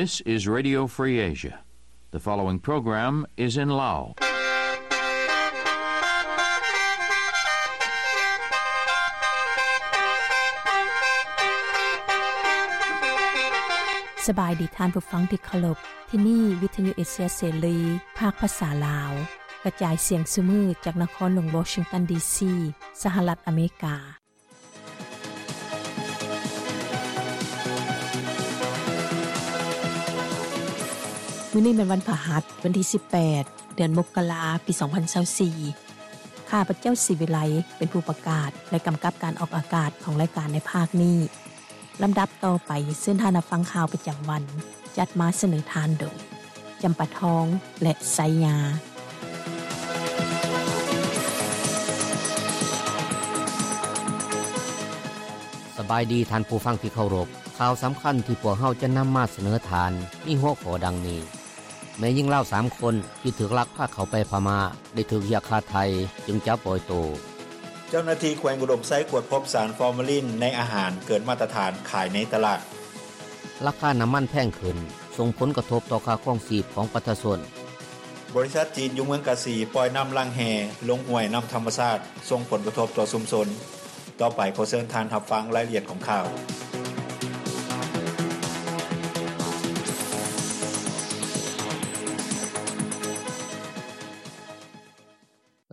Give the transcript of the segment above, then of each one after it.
This is Radio Free Asia. The following program is in Lao. ສະບາຍດີທ່ານຜູ້ຟັງທີ່ເຄົາລົບ. ທີ່ນີ້ວິທະຍຸເອເຊຍເສລີ ພາກພາສາລາວ ກະຈາຍສຽງຊຸມື້ຈາກນະຄອນຫຼວງວໍຊິງຕັນ ດີຊີ ສະຫະລັດອາເມລິກາ. ມື້ນີ້ແມ່ນວັນພະຫັດ ວັນທີສິບແປດ ເດືອນມົກກະລາ ປີສອງພັນຊາວສີ່. ຂ້າພະເຈົ້າ ສີວິໄລ ເປັນຜູ້ປະກາດ ແລະ ກຳກັບການອອກອາກາດຂອງລາຍການໃນພາກນີ້. ລຳດັບຕໍ່ໄປ ເຊີນທ່ານຮັບຟັງຂ່າວປະຈຳວັນ ຈັດມາສະເໜີທ່ານໂດຍ ຈຳປາທອງ ແລະ ໄຊຍາ. ສະບາຍດີທ່ານຜູ້ຟັງທີ່ເຄົາລົບ. ຂ່າວສຳຄັນທີ່ພວກເຮົາຈະນຳມາສະເໜີທ່ານ ມີຫົວຂໍ້ດັ່ງນີ້: ແມ່ຍິງລາວສາມຄົນທີ່ຖືກລັກພາເຂົ້າໄປພະມ້າ ໄດ້ຖືກຮຽກຄ່າໄຖ່ຈຶ່ງຈະປ່ອຍໂຕ. ເຈົ້າໜ້າທີ່ແຂວງອຸດົມໄຊກວດພົບສານຟໍມາລິນໃນອາຫານເກີນມາດຕະຖານຂາຍໃນຕະຫຼາດ. ລາຄານ້ຳມັນແພງຂຶ້ນ ສົ່ງຜົນກະທົບຕໍ່ຄ່າຄອງຊີບຂອງປະຊາຊົນ. ບໍລິສັດຈີນຢູ່ເມືອງກາສີປ່ອຍນ້ຳລ້າງແຮ່ລົງຫ້ວຍນ້ຳທຳມະຊາດ ສົ່ງຜົນກະທົບຕໍ່ຊຸມຊົນ. ຕໍ່ໄປຂໍເຊີນທ່ານຮັບຟັງລາຍລະອຽດຂອງຂ່າວ.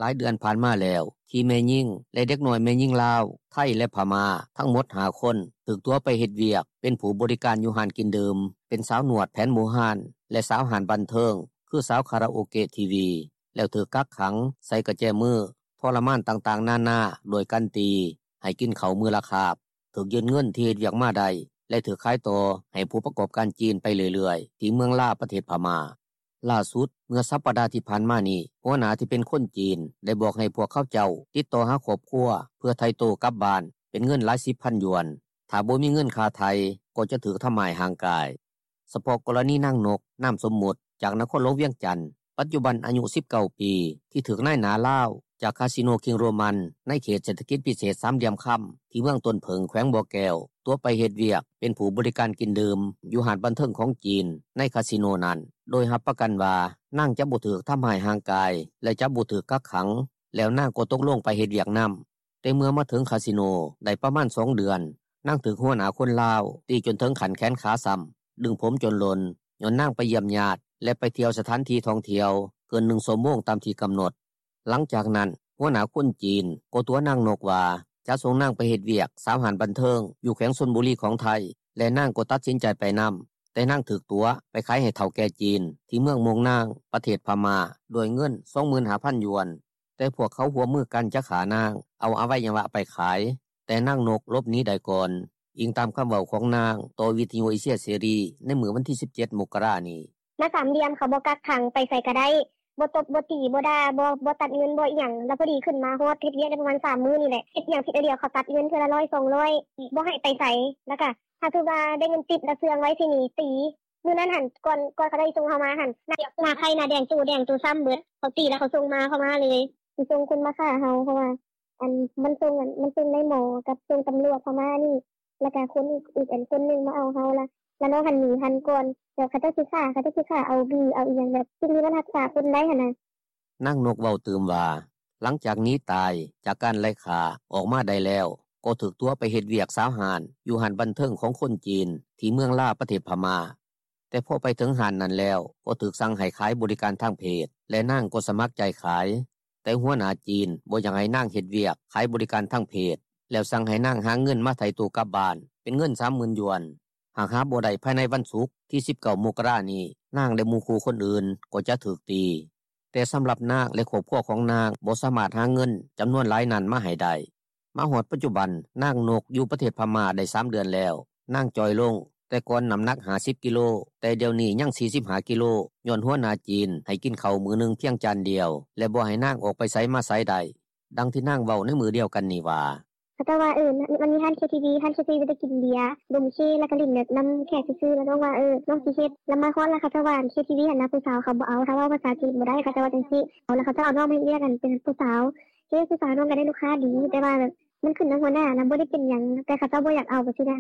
ຫຼາຍເດືອນຜ່ານມາແລ້ວ ທີ່ແມ່ຍິງ ແລະ ເດັກນ້ອຍແມ່ຍິງລາວ, ໄທ ແລະ ພະມ້າ ທັງໝົດຫ້າຄົນ ຖືກຕົວະໄປເຮັດວຽກເປັນຜູ້ບໍລິການຢູ່ຮ້ານກິນດື່ມ, ເປັນສາວນວດແຜນບູຮານ ແລະ ສາວຮ້ານບັນເທີງ ຄືສາວຄາຣາໂອເກະ ທີ ວີ ແລ້ວຖືກກັກຂັງໃສ່ກະແຈມື, ທໍລະມານຕ່າງໆນານາ ດ້ວຍການຕີ, ໃຫ້ກິນເຂົ້າມື້ລະຄາບ, ຖືກຍຶດເງິນທີ່ເຮັດວຽກມາໄດ້ ແລະ ຖືກຂາຍຕໍ່ໃຫ້ຜູ້ປະກອບການຈີນໄປເລື້ອຍໆ ທີ່ເມືອງລາ ປະເທດພະມ້າ. ລ່າສຸດ ເມື່ອສັບປະດາທີ່ຜ່ານມານີ້ ຫົວໜ້າທີ່ເປັນຄົນຈີນ ໄດ້ບອກໃຫ້ພວກເຂົາເຈົ້າຕິດຕໍ່ຫາຄອບຄົວ ເພື່ອໄຖ່ໂຕກັບບ້ານເປັນເງິນຫຼາຍສິບພັນຢວນ, ຖ້າບໍ່ມີເງິນຄ່າໄຖ່ ກໍຈະຖືກທຳຮ້າຍຮ່າງກາຍ. ສະເພາະກໍລະນີນາງນົກ ນາມສົມມຸດ ຈາກນະຄອນຫຼວງວຽງຈັນ ປັດຈຸບັນອາຍຸສິບເກົ້າປີ ທີ່ຖືກນາຍໜ້າລາວຈາກຄາສິໂນຄິງໂຣມັນ ໃນເຂດເສດຖະກິດພິເສດສາມຫຼ່ຽມຄຳ ທີ່ເມືອງຕົ້ນເຜິ້ງ ແຂວງບໍ່ແກ້ວ ຕົວະໄປເຮັດວຽກເປັນຜູ້ບໍລິການກິນດື່ມຢູ່ຮ້ານບັນເທີງຂອງຈີນໃນຄາສິໂນນັ້ນ ໂດຍຮັບປະກັນວ່ານາງຈະບໍ່ຖືກທຳຮ້າຍຮ່າງກາຍ ແລະ ຈະບໍ່ຖືກກັກຂັງ ແລ້ວນາງກໍຕົກລົງໄປເຮັດວຽກນຳ. ແຕ່ເມື່ອມາເຖິງຄາສິໂນໄດ້ປະມານສອງເດືອນ, ນາງຖືກຫົວໜ້າຄົນລາວຕີຈົນເຖິງຂັ້ນແຂນຂາຊ້ຳ, ດຶງຜົມຈົນຫຼົ່ນ ຍ້ອນນາງໄປຢ້ຽມຍາດ ແລະ ໄປທ່ຽວສະຖານທີ່ທ່ອງທ່ຽວເກີນໜຶ່ງຊົ່ວໂມງຕາມທີ່ກຳນົດ. ຫຼັງຈາກນັ້ນ ຫົວໜ້າຄົນຈີນກໍຕົວະນາງນົກວ່າຈະສົ່ງນາງໄປເຮັດວຽກສາວຮ້ານບັນເທີງຢູ່ແຂວງຊົນບູລີຂອງໄທ ແລະ ນາງກໍຕັດສິນໃຈໄປນຳ, ແຕ່ນາງຖືກຕົວະໄປຂາຍໃຫ້ເຖົ້າແກ່ຈີນທີ່ເມືອງມ່ວງນາງ ປະເທດພະມ້າ ດ້ວຍເງິນສອງໝື່ນຫ້າພັນຢວນ. ແຕ່ພວກເຂົາຮ່ວມມືກັນຈະຂ້ານາງ, ເອົາອະໄວຍະວະໄປຂາຍ, ແຕ່ນາງນົກຫຼົບໜີໄດ້ກ່ອນ, ອີງຕາມຄຳເວົ້າຂອງນາງຕໍ່ວິທະຍຸເອເຊຍເສລີໃນມື້ວັນທີສິບເຈັດ ມົກກະລານີ້. ມາສາມຫຼ່ຽມ ເຂົາບໍ່ກັກຂັງ ໄປໃສກະໄດ້, ບໍ່ຕົບ ບໍ່ຕີ ບໍ່ດ່າ ບໍ່ ບໍ່ຕັດເງິນ ບໍ່ອີ່ຫຍັງ. ລະພໍດີຂຶ້ນມາຮອດ ເຮັດວຽກໄດ້ປະມານສາມມື້ນີ້ແຫຼະ, ເຮັດຫຍັງຜິດອັນດຽວ ເຂົາຕັດເງິນເທື່ອລະຮ້ອຍສອງຮ້ອຍ, ບໍ່ໃຫ້ໄປໃສ, ລະກະຖ້າຖືວ່າໄດ້ເງິນຕິບ ລະເຊື່ອງໄວ້ຊິໜີ, ຕີ. ມື້ນັ້ນຫັ້ນ ກ່ອນ ກ່ອນເຂົາເຈົ້າຊິສົ່ງເຮົາມາຫັ້ນ ໜ້າ ໜ້າໄຂ້ໜ້າແດງ ໂຕແດງໂຕຊ້ຳເບິດ. ເຂົາຕີແລ້ວເຂົາສົ່ງມາ ເຂົາມາເລີຍ. ຊິສົ່ງຄົນມາຂ້າເຮົາ ເພາະວ່າ ອັນ ມັນສົ່ງ ອັນ ມັນສົ່ງນາຍໝໍກັບສົ່ງຕຳຫຼວດເຂົ້າມານີ້ ແລ້ວກະຄົນອີກ ອີກ ອັນ ຄົນໜຶ່ງມາເອົາເຮົາລະ ລະນ້ອງຫັ້ນໜີທັນກ່ອນ. ແລ້ວເຂົາເຈົ້າຊິຂ້າ ເຂົາເຈົ້າຊິຂ້າເອົາບີເອົາອີ່ຫຍັງ ແບບສິ່ງທີ່ມັນຮັກສາຄົນໄດ້ຫັ້ນນະ. ນາງນົກເວົ້າຕື່ມວ່າ ຫຼັງຈາກໜີຕາຍຈາກການໄລ່ຂ້າອອກມາໄດ້ແລ້ວ ກໍຖືກຕົວະໄປເຮັດວຽກສາວຮ້ານຢູ່ຮ້ານບັນເທີງຂອງຄົນຈີນທີ່ເມືອງລາ ປະເທດພະມ້າ. ແຕ່ພໍໄປເຖິງຮ້ານນັ້ນແລ້ວ ກໍຖືກສັ່ງໃຫ້ຂາຍບໍລິການທາງເພດ ແລະ ນາງກໍສະໝັກໃຈຂາຍ. ແຕ່ຫົວໜ້າຈີນບໍ່ຢາກໃຫ້ນາງເຮັດວຽກຂາຍບໍລິການທາງເພດ ແລ້ວສັ່ງໃຫ້ນາງຫາເງິນມາໄຖ່ໂຕກັບບ້ານເປັນເງິນສາມໝື່ນຢວນ. ຫາກຫາບໍ່ໄດ້ພາຍໃນວັນສຸກທີສິບເກົ້າ ມົກກະລານີ້ ນາງ ແລະ ໝູ່ຄູ່ຄົນອື່ນກໍຈະຖືກຕີ. ແຕ່ສຳລັບນາງ ແລະ ຄອບຄົວຂອງນາງບໍ່ສາມາດຫາເງິນຈຳນວນຫຼາຍນັ້ນມາໃຫ້ໄດ້. ມາຮອດປັດຈຸບັນ ນາງນົກຢູ່ປະເທດພະມ້າໄດ້ສາມເດືອນແລ້ວ. ນາງຈ່ອຍລົງ, ແຕ່ກ່ອນນ້ຳໜັກຫ້າສິບກິໂລ, ແຕ່ດຽວນີ້ຍັງສີ່ສິບຫ້າກິໂລ ຍ້ອນຫົວໜ້າຈີນໃຫ້ກິນເຂົ້າມື້ໜຶ່ງພຽງຈານດຽວ ແລະ ບໍ່ໃຫ້ນາງອອກໄປໃສມາໃສໄດ້. ດັ່ງທີ່ນາງເວົ້າໃນມື້ດຽວກັນນີ້ວ່າ: ເຂົາເຈົ້າວ່າ ເອີ ມັນມີຮ້ານເຄທີວີ ຮ້ານເຄທີວີໄດ້ກິນເບຍ ດົມເຄ ແລ້ວກະຫຼິ້ນແບບນຳແຂກຊື່ໆ ແລ້ວນ້ອງວ່າ ເອີ ນ້ອງຊິເຮັດ. ແລ້ວມາຮອດແລ້ວເຂົາເຈົ້າວ່າ ເຄທີວີຫັ້ນນະ ຜູ້ສາວເຂົາບໍ່ເອົາ ຖ້າເວົ້າພາສາຈີນບໍ່ໄດ້ ເຂົາເຈົ້າວ່າຈັ່ງຊີ້. ເອົາ ແລ້ວເຂົາເຈົ້າເອົານ້ອງມາເຮັດວຽກ ອັນ ເປັນຜູ້ສາວ ເຄ ຜູ້ສາວ ນ້ອງກະໄດ້ລູກຄ້າດີ ແຕ່ວ່າແບບ ມັນຂຶ້ນນຳຫົວໜ້ານະ ບໍ່ໄດ້ເປັນຫຍັງ ແຕ່ເຂົາເຈົ້າບໍ່ຢາກເອົາຈັ່ງຊີ້ນະ.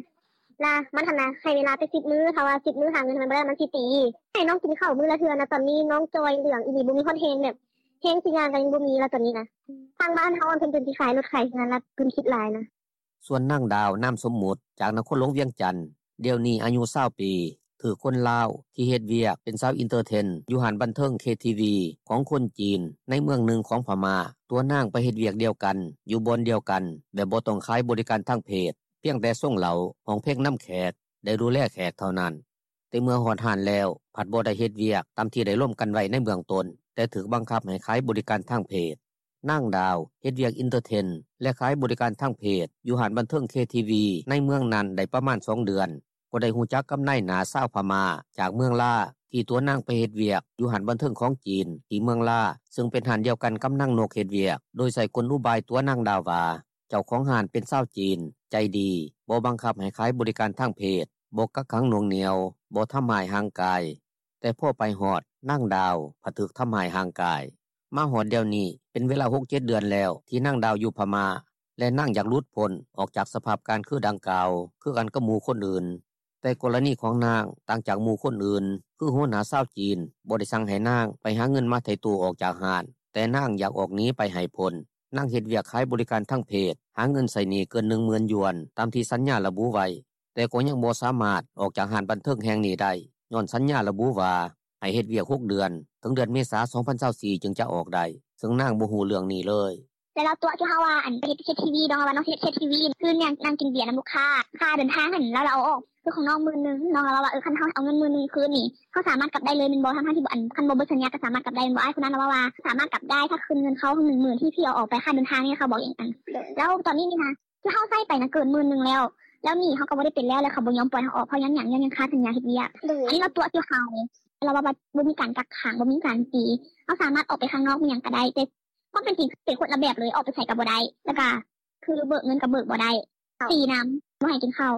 ລະມັນຫັ້ນນະ ໃຫ້ເວລາໄປສິບມື້ ຖ້າວ່າສິບມື້ຫາເງິນມັນບໍ່ໄດ້ ມັນຊິຕີ. ໃຫ້ນ້ອງກິນເຂົ້າມື້ລະເທື່ອນະ ຕອນນີ້ນ້ອງຈ່ອຍເຫຼືອງອີ່ຫຼີ ບໍ່ມີຮອດແຮງ ແບບແຮງຊິຍ່າງກໍຍັງບໍ່ມີລະ ຕອນນີ້ນະ. ທາງບ້ານເຮົາເພິ່ນ ເພິ່ນຊິຂາຍລົດຂາຍເຮືອນລະ ເພິ່ນຄິດຫຼາຍນະ. ສ່ວນນາງດາວ ນາມສົມມຸດ ຈາກນະຄອນຫຼວງວຽງຈັນ ດຽວນີ້ອາຍຸຊາວປີ ຖືກຄົນລາວທີ່ເຮັດວຽກເປັນສາວເອັນເຕີເທນ ຢູ່ຮ້ານບັນເທີງ ເຄທີວີ ຂອງຄົນຈີນໃນເມືອງໜຶ່ງຂອງພະມ້າ ຕົວະນາງໄປເຮັດວຽກດຽວກັນ ຢູ່ບ່ອນດຽວກັນ ແບບບໍ່ຕ້ອງຂາຍບໍລິການທາງເພດ ພຽງແຕ່ສົ່ງເຫຼົ້າ ຮ້ອງເພງນຳແຂກ ໄດ້ດູແລແຂກເທົ່ານັ້ນ. ແຕ່ເມື່ອຮອດຮ້ານແລ້ວ ພັດບໍ່ໄດ້ເຮັດວຽກຕາມທີ່ໄດ້ລົມກັນໄວ້ໃນເບື້ອງຕົ້ນ ແຕ່ຖືກບັງຄັບໃຫ້ຂາຍບໍລິການທາງເພດ. ນາງດາວ ເຮັດວຽກເອັນເຕີເທນ ແລະຂາຍບໍລິການທາງເພດ ຢູ່ຮ້ານບັນເທີງ ເຄທີວີ ໃນເມືອງນັ້ນໄດ້ປະມານສອງເດືອນ ກໍໄດ້ຮູ້ຈັກກັບນາຍໜ້າຊາວພະມ້າຈາກເມືອງລາ ທີ່ຕົວະນາງໄປເຮັດວຽກຢູ່ຮ້ານບັນເທີງຂອງຈີນທີ່ເມືອງລາ ເຊິ່ງເປັນຮ້ານດຽວກັນກັບນາງນົກເຮັດວຽກ ໂດຍໃຊ້ກົນອຸບາຍຕົວະນາງດາວວ່າ ເຈົ້າຂອງຮ້ານເປັນຊາວຈີນ ໃຈດີ ບໍ່ບັງຄັບໃຫ້ຂາຍບໍລິການທາງເພດ, ບໍ່ກັກຂັງໜ່ວງໜ່ຽວ, ບໍ່ທຳຮ້າຍຮ່າງກາຍ. ແຕ່ພໍໄປຮອດ ນາງດາວພັດຖືກທຳຮ້າຍຮ່າງກາຍ. ມາຮອດດຽວນີ້ເປັນເວລາຫົກເຈັດເດືອນແລ້ວທີ່ນາງດາວຢູ່ພະມ້າ ແລະນາງຢາກຫຼຸດພົ້ນອອກຈາກສະພາບການຄືດັ່ງກ່າວ ຄືກັນກັບໝູ່ຄົນອື່ນ. ແຕ່ກໍລະນີຂອງນາງຕ່າງຈາກໝູ່ຄົນອື່ນ ຄືຫົວໜ້າຊາວຈີນບໍ່ໄດ້ສັ່ງໃຫ້ນາງໄປຫາເງິນມາໄຖ່ໂຕອອກຈາກຮ້ານ, ແຕ່ນາງຢາກອອກໜີໄປໃຫ້ພົ້ນ. ນາງເຮັດວຽກຂາຍບໍລິການທາງເພດ ຫາເງິນໃຊ້ໜີ້ເກີນໜຶ່ງໝື່ນຢວນ ຕາມທີ່ສັນຍາລະບຸໄວ້, ແຕ່ກໍຍັງບໍ່ສາມາດອອກຈາກຮ້ານບັນເທີງແຫ່ງນີ້ໄດ້ ຍ້ອນສັນຍາລະບຸວ່າ ໃຫ້ເຮັດວຽກຫົກເດືອນ ເຖິງເດືອນເມສາ ສອງພັນຊາວສີ່ ຈຶ່ງຈະອອກໄດ້, ເຊິ່ງນາງບໍ່ຮູ້ເລື່ອງນີ້ເລີຍ. ແລ້ວລາວຕົວະທີ່ເຮົາວ່າ ອັນ ເຮັດ ເຮັດທີວີ ນ້ອງລາວວ່ານ້ອງເຮັດ ເຮັດທີວີ ຄືນາງ ນາງກິນເບຍນຳລູກຄ້າ ຄ່າເດີນທາງຫັ້ນ ແລ້ວລາວເອົາອອກ ຄືຂອງນ້ອງໝື່ນໜຶ່ງ ນ້ອງລາວວ່າ ເອີ ຄັນເຮົາເອົາເງິນໝື່ນໜຶ່ງຄືນນີ້ ເຮົາສາມາດກັບໄດ້ເລີຍແມ່ນບໍ່ ທັງໆທີ່ ອັນ ຄັນບໍ່ເບິດສັນຍາກໍສາມາດກັບໄດ້ແມ່ນບໍ່? ອ້າຍຄົນນັ້ນລາວເວົ້າວ່າ ສາມາດກັບໄດ້ ຖ້າຄືນເງິນເຂົາໜຶ່ງໝື່ນທີ່ ທີ່ເອົາອອກໄປຄ່າເດີນທາງນີ້ ເຂົາບອກຢ່າງນັ້ນ. ແລ້ວຕອນນີ້ນີ້ນະ ທີ່ເຮົາໃຊ້ໄປນະເກີນໝື່ນໜຶ່ງແລ້ວ ແລ້ວໜີ້ເຮົາກໍບໍ່ໄດ້ເປັນແລ້ວ ແລ້ວເຂົາບໍ່ຍອມປ່ອຍເຮົາອອກ ເພາະຫຍັງ? ຍ້ອນຍັງຄາສັນຍາເຮັດວຽກ. ອັນນີ້ລາວຕົວະທີ່ເຮົາ ລາວວ່າບໍ່ມີການກັກຂັງ ບໍ່ມີການຕີ ເຮົາສາມາດອອກໄປຂ້າງນອກມີຫຍັງກໍໄດ້ ແຕ່ຄວາມເປັນຈິງເປັນຄົນລະແບບເລີຍ ອອກໄປໃສກໍບໍ່ໄດ້ ແລ້ວກໍຄືເບີກເງິນກໍເບີກບໍ່ໄດ້ ຕີນຳ ບໍ່ໃຫ້ກິນເຂົ້າ.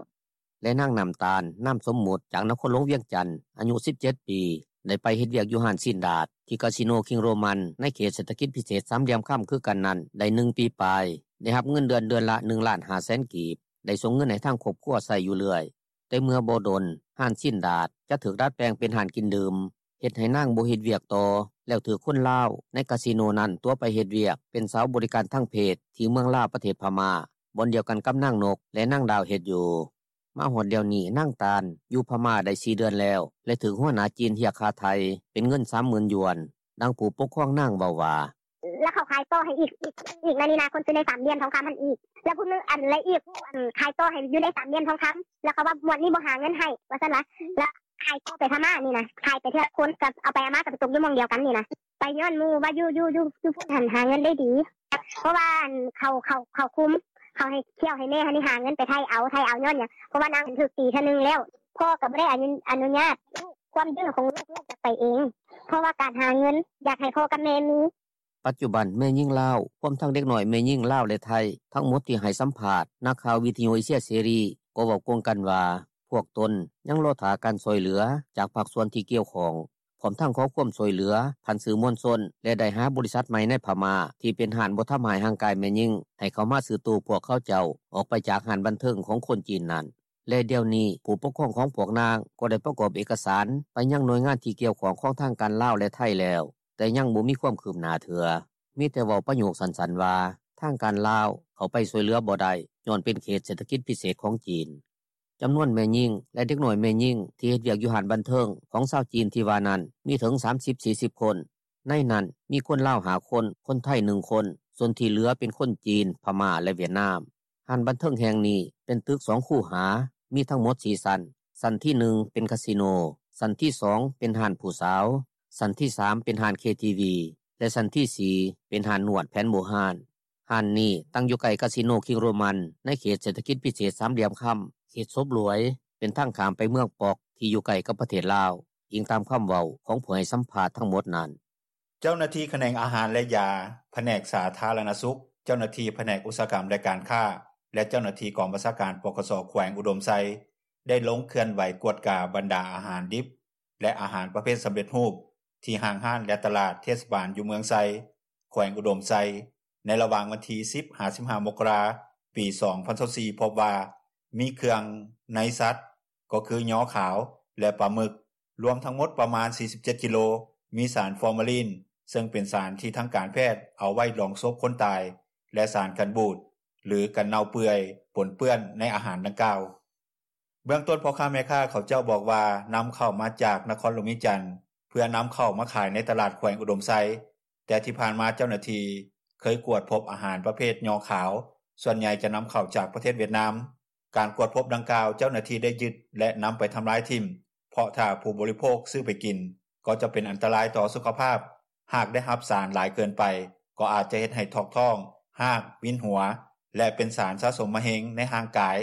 ແລະນາງ ນ້ຳຕານ ນາມສົມມຸດ ຈາກນະຄອນຫຼວງວຽງຈັນ ອາຍຸສິບເຈັດປີ ໄດ້ໄປເຮັດວຽກຢູ່ຮ້ານຊີ້ນດາດ ທີ່ກາສິໂນຄິງໂຣມັນ ໃນເຂດເສດຖະກິດພິເສດສາມຫຼ່ຽມຄຳຄືກັນນັ້ນໄດ້ໜຶ່ງປີປາຍ, ໄດ້ຮັບເງິນເດືອນເດືອນລະໜຶ່ງລ້ານຫ້າແສນກີບ, ໄດ້ສົ່ງເງິນໃຫ້ທາງຄອບຄົວໃຊ້ຢູ່ເລື້ອຍ. ແຕ່ເມື່ອບໍ່ດົນ ຮ້ານຊີ້ນດາດຈະຖືກດັດແປງເປັນຮ້ານກິນດື່ມ, ເຮັດໃຫ້ນາງບໍ່ເຮັດວຽກຕໍ່ ແລ້ວຖືກຄົນລາວໃນກາສິໂນນັ້ນຕົວະໄປເຮັດວຽກເປັນສາວບໍລິການທາງເພດທີ່ເມືອງລາ ປະເທດພະມ້າ ບ່ອນດຽວກັນກັບນາງນົກ ແລະນາງດາວເຮັດຢູ່. ມາຮອດດຽວນີ້ ນາງຕານ ຢູ່ພະມ້າໄດ້ສີ່ເດືອນແລ້ວ ແລະຖືກຫົວໜ້າຈີນຮຽກຄ່າໄຖ່ເປັນເງິນສາມໝື່ນຢວນ, ດັ່ງຜູ້ປົກຄອງນາງເວົ້າວ່າ ແລ້ວເຂົາຂາຍຕໍ່ໃຫ້ອີກ ອີກ ອີກໃນນີ້ນະ ຄົນຢູ່ໃນສາມຫຼ່ຽມທອງຄຳຫັ້ນອີກ ແລ້ວຜູ້ໜຶ່ງ ອັນ ແລະອີກ ອັນ ຂາຍຕໍ່ໃຫ້ຢູ່ໃນສາມຫຼ່ຽມທອງຄຳ ແລ້ວເຂົາວ່າງວດນີ້ບໍ່ຫາເງິນໃຫ້ ວ່າຊັ້ນລະ ແລ້ວຂາຍຕໍ່ໄປພະມ້ານີ້ນະ ຂາຍໄປເທື່ອຄົນ ກໍເອົາໄປເອົາມາກໍໄປຕົກຢູ່ໝ່ອງດຽວກັນນີ້ນະ ໄປຍ້ອນໝູ່ວ່າຢູ່ ຢູ່ ຢູ່ ຢູ່ພຸ້ນຫັ້ນຫາເງິນໄດ້ດີ ເພາະວ່າ ອັນ ເຂົາ ເຂົາ ເຂົາຄຸມ ເຂົາໃຫ້ທ່ຽວໃຫ້ແມ່ຫັ້ນນີ້ຫາເງິນໄປໄຖ່ເອົາ ໄຖ່ເອົາຍ້ອນຫຍັງ ເພາະວ່ານາງຖືກຕີເທື່ອໜຶ່ງແລ້ວ ພໍ່ກໍບໍ່ໄດ້ອະນຸ ອະນຸຍາດ ຄວາມດື້ຂອງລູກ ລູກຢາກໄປເອງ ເພາະວ່າການຫາເງິນ ຢາກໃຫ້ພໍ່ກັບແມ່ມີ. ປັດຈຸບັນແມ່ຍິງລາວ ຮວມທັງເດັກນ້ອຍແມ່ຍິງລາວ ແລະໄທ ທັງໝົດທີ່ໃຫ້ສຳພາດນັກຂ່າວວິທະຍຸເອເຊຍເສລີ ກໍເວົ້າກົງກັນວ່າ ພວກຕົນຍັງລໍຖ້າການຊ່ວຍເຫຼືອຈາກພາກສ່ວນທີ່ກ່ຽວຂ້ອງ ພ້ອມທັງຂໍຄວາມຊ່ວຍເຫຼືອຜ່ານສື່ມວນຊົນ ແລະໄດ້ຫາບໍລິສັດໃໝ່ໃນພະມ້າ ທີ່ເປັນຮ້ານບໍ່ທຳຮ້າຍຮ່າງກາຍແມ່ຍິງ ໃຫ້ເຂົ້າມາຊື້ໂຕພວກເຂົາເຈົ້າອອກໄປຈາກຮ້ານບັນເທີງຂອງຄົນຈີນນັ້ນ. ແລະດຽວນີ້ ຜູ້ປົກຄອງຂອງພວກນາງກໍໄດ້ປະກອບເອກະສານໄປຍັງໜ່ວຍງານທີ່ກ່ຽວຂ້ອງຂອງທາງການລາວ ແລະໄທແລ້ວ, ແຕ່ຍັງບໍ່ມີຄວາມຄືບໜ້າເທື່ອ, ມີແຕ່ເວົ້າປະໂຫຍກສັ້ນໆວ່າ ທາງການລາວເຂົ້າໄປຊ່ວຍເຫຼືອບໍ່ໄດ້ ຍ້ອນເປັນເຂດເສດຖະກິດພິເສດຂອງຈີນ. ຈຳນວນແມ່ຍິງ ແລະເດັກນ້ອຍແມ່ຍິງທີ່ເຮັດວຽກຢູ່ຮ້ານບັນເທີງຂອງຊາວຈີນທີ່ວ່ານັ້ນ ມີເຖິງສາມສິບ ສີ່ສິບຄົນ, ໃນນັ້ນມີຄົນລາວຫ້າຄົນ, ຄົນໄທໜຶ່ງຄົນ, ສ່ວນທີ່ເຫຼືອເປັນຄົນຈີນ, ພະມ້າ ແລະຫວຽດນາມ. ຮ້ານບັນເທີງແຫ່ງນີ້ເປັນຕຶກສອງຄູຫາ, ມີທັງໝົດສີ່ຊັ້ນ, ຊັ້ນທີໜຶ່ງເປັນຄາສິໂນ, ຊັ້ນທີສອງເປັນຮ້ານຜູ້ສາວ, ຊັ້ນທີສາມເປັນຮ້ານເຄທີວີ ແລະຊັ້ນທີສີ່ເປັນຮ້ານນວດແຜນບູຮານ. ຮ້ານນີ້ຕັ້ງຢູ່ໃກ້ຄາສິໂນຄິງໂຣມັນ ໃນເຂດເສດຖະກິດພິເສດສາມຫຼ່ຽມຄຳ, ເຂດສົບຫຼວຍ, ເປັນທາງຂ້າມໄປເມືອງປອກ ທີ່ຢູ່ໃກ້ກັບປະເທດລາວ, ອີງຕາມຄຳເວົ້າຂອງຜູ້ໃຫ້ສຳພາດທັງໝົດນັ້ນ. ເຈົ້າໜ້າທີ່ຂະແໜງອາຫານ ແລະ ຢາ, ພະແນກສາທາລະນະສຸກ, ເຈົ້າໜ້າທີ່ພະແນກອຸດສາຫະກຳ ແລະ ການຄ້າ ແລະ ເຈົ້າໜ້າທີ່ກອງບັນຊາການ ປກສ ແຂວງອຸດົມໄຊ ໄດ້ລົງເຄື່ອນໄຫວກວດກາບັນດາອາຫານດິບ ແລະ ອາຫານປະເພດສຳເລັດຮູບ ທີ່ຫ້າງຮ້ານ ແລະ ຕະຫຼາດເທດສະບານຢູ່ເມືອງໄຊ ແຂວງອຸດົມໄຊ ໃນລະຫວ່າງວັນທີສິບ ຫາ ສິບຫ້າ ມົກກະລາ ປີສອງພັນຊາວສີ່ ພົບວ່າ ມີເຄື່ອງໃນສັດ ກໍຄືຍໍຂາວ ແລະ ປາໝຶກ ລວມທັງໝົດປະມານ 47 ກິໂລ ມີສານຟໍມາລີນ ເຊິ່ງເປັນສານທີ່ທາງການແພດ ເອົາໄວ້ດອງສົບຄົນຕາຍ ແລະ ສານກັນບູດ ຫຼື ກັນເນົ່າເປື່ອຍ ປົນເປື້ອນໃນອາຫານດັ່ງກ່າວ. ເບື້ອງຕົ້ນພໍ່ຄ້າແມ່ຄ້າເຂົາເຈົ້າບອກວ່າ ນຳເຂົ້າມາຈາກນະຄອນຫຼວງວຽງຈັນ ເພື່ອນຳເຂົ້າມາຂາຍໃນຕະຫຼາດແຂວງອຸດົມໄຊ, ແຕ່ທີ່ຜ່ານມາເຈົ້າໜ້າທີ່ເຄີຍກວດພົບອາຫານປະເພດຍໍຂາວ ສ່ວນໃຫຍ່ຈະນຳເຂົ້າຈາກປະເທດຫວຽດນາມ. ການກວດພົບດັ່ງກ່າວ ເຈົ້າໜ້າທີ່ໄດ້ຍຶດ ແລະ ນຳໄປທຳລາຍຖິ້ມ ເພາະຖ້າຜູ້ບໍລິໂພກຊື້ໄປກິນ ກໍຈະເປັນອັນຕະລາຍຕໍ່ສຸຂະພາບ, ຫາກໄດ້ຮັບສານຫຼາຍເກີນໄປ ກໍອາດຈະເຮັດໃຫ້ຖອກທ້ອງ, ຮາກ, ວິນຫົວ ແລະ ເປັນສານສະສົມມະເຮັງໃນຮ່າງກາຍ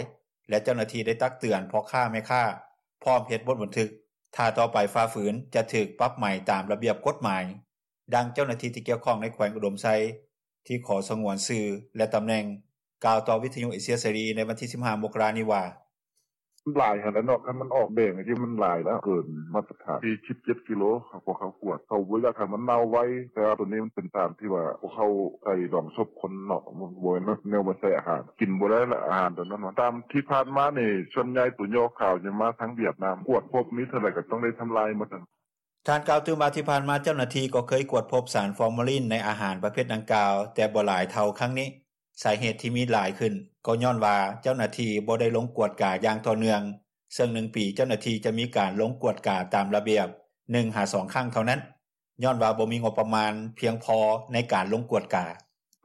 ແລະ ເຈົ້າໜ້າທີ່ໄດ້ຕັກເຕືອນພໍ່ຄ້າແມ່ຄ້າ ພ້ອມເຮັດບົດບັນທຶກ, ຖ້າຕໍ່ໄປຝ່າຝືນຈະຖືກປັບໃໝຕາມລະບຽບກົດໝາຍ. ດັ່ງເຈົ້າໜ້າທີ່ທີ່ກ່ຽວຂ້ອງໃນແຂວງອຸດົມໄຊ ທີ່ຂໍສະຫງວນຊື່ ແລະ ຕຳແໜ່ງ ກ່າວຕໍ່ວິທຍຸເອເຊຍເສລີໃນວັນທີ 15 ມົກກະລານີ້ວ່າ: ມັນຫຼາຍຫັ້ນແຫຼະເນາະ ຄັນມັນອອກແດງຈັ່ງຊີ້ ມັນຫຼາຍແລ້ວ ເກີນມາດຕະຖານ 47 ກິໂລ ພວກເຮົາກວດ ເຂົາບໍ່ຢາກໃຫ້ມັນເນົ່າໄວ ແຕ່ວ່າໂຕນີ້ມັນເປັນຕາມທີ່ວ່າ ພວກເຮົາໃສ່ດອງສົບຄົນເນາະ ມັນບໍ່ແມ່ນແນວມາໃສ່ອາຫານ ກິນບໍ່ໄດ້ລະ ອາຫານໂຕນັ້ນ ຕາມທີ່ຜ່ານມານີ້ ສ່ວນໃຫຍ່ໂຕຍໍຂາວຈະມາທາງຫວຽດນາມ ກວດພົບມີເທົ່າໃດກໍຕ້ອງໄດ້ທຳລາຍໝົດ. ທ່ານກ່າວຕື່ມວ່າ ທີ່ຜ່ານມາເຈົ້າໜ້າທີ່ກໍເຄີຍກວດພົບສານຟໍມາລີນໃນອາຫານປະເພດດັ່ງກ່າວ ແຕ່ບໍ່ຫຼາຍເທົ່າຄັ້ງນີ້. ສາເຫດທີ່ມີຫຼາຍຂຶ້ນ ກໍຍ້ອນວ່າເຈົ້າໜ້າທີ່ບໍ່ໄດ້ລົງກວດກາຢ່າງຕໍ່ເນື່ອງ ເຊິ່ງໜຶ່ງປີເຈົ້າໜ້າທີ່ຈະມີການລົງກວດກາຕາມລະບຽບ ໜຶ່ງຫາສອງຄັ້ງເທົ່ານັ້ນ ຍ້ອນວ່າບໍ່ມີງົບປະມານພຽງພໍໃນການລົງກວດກາ.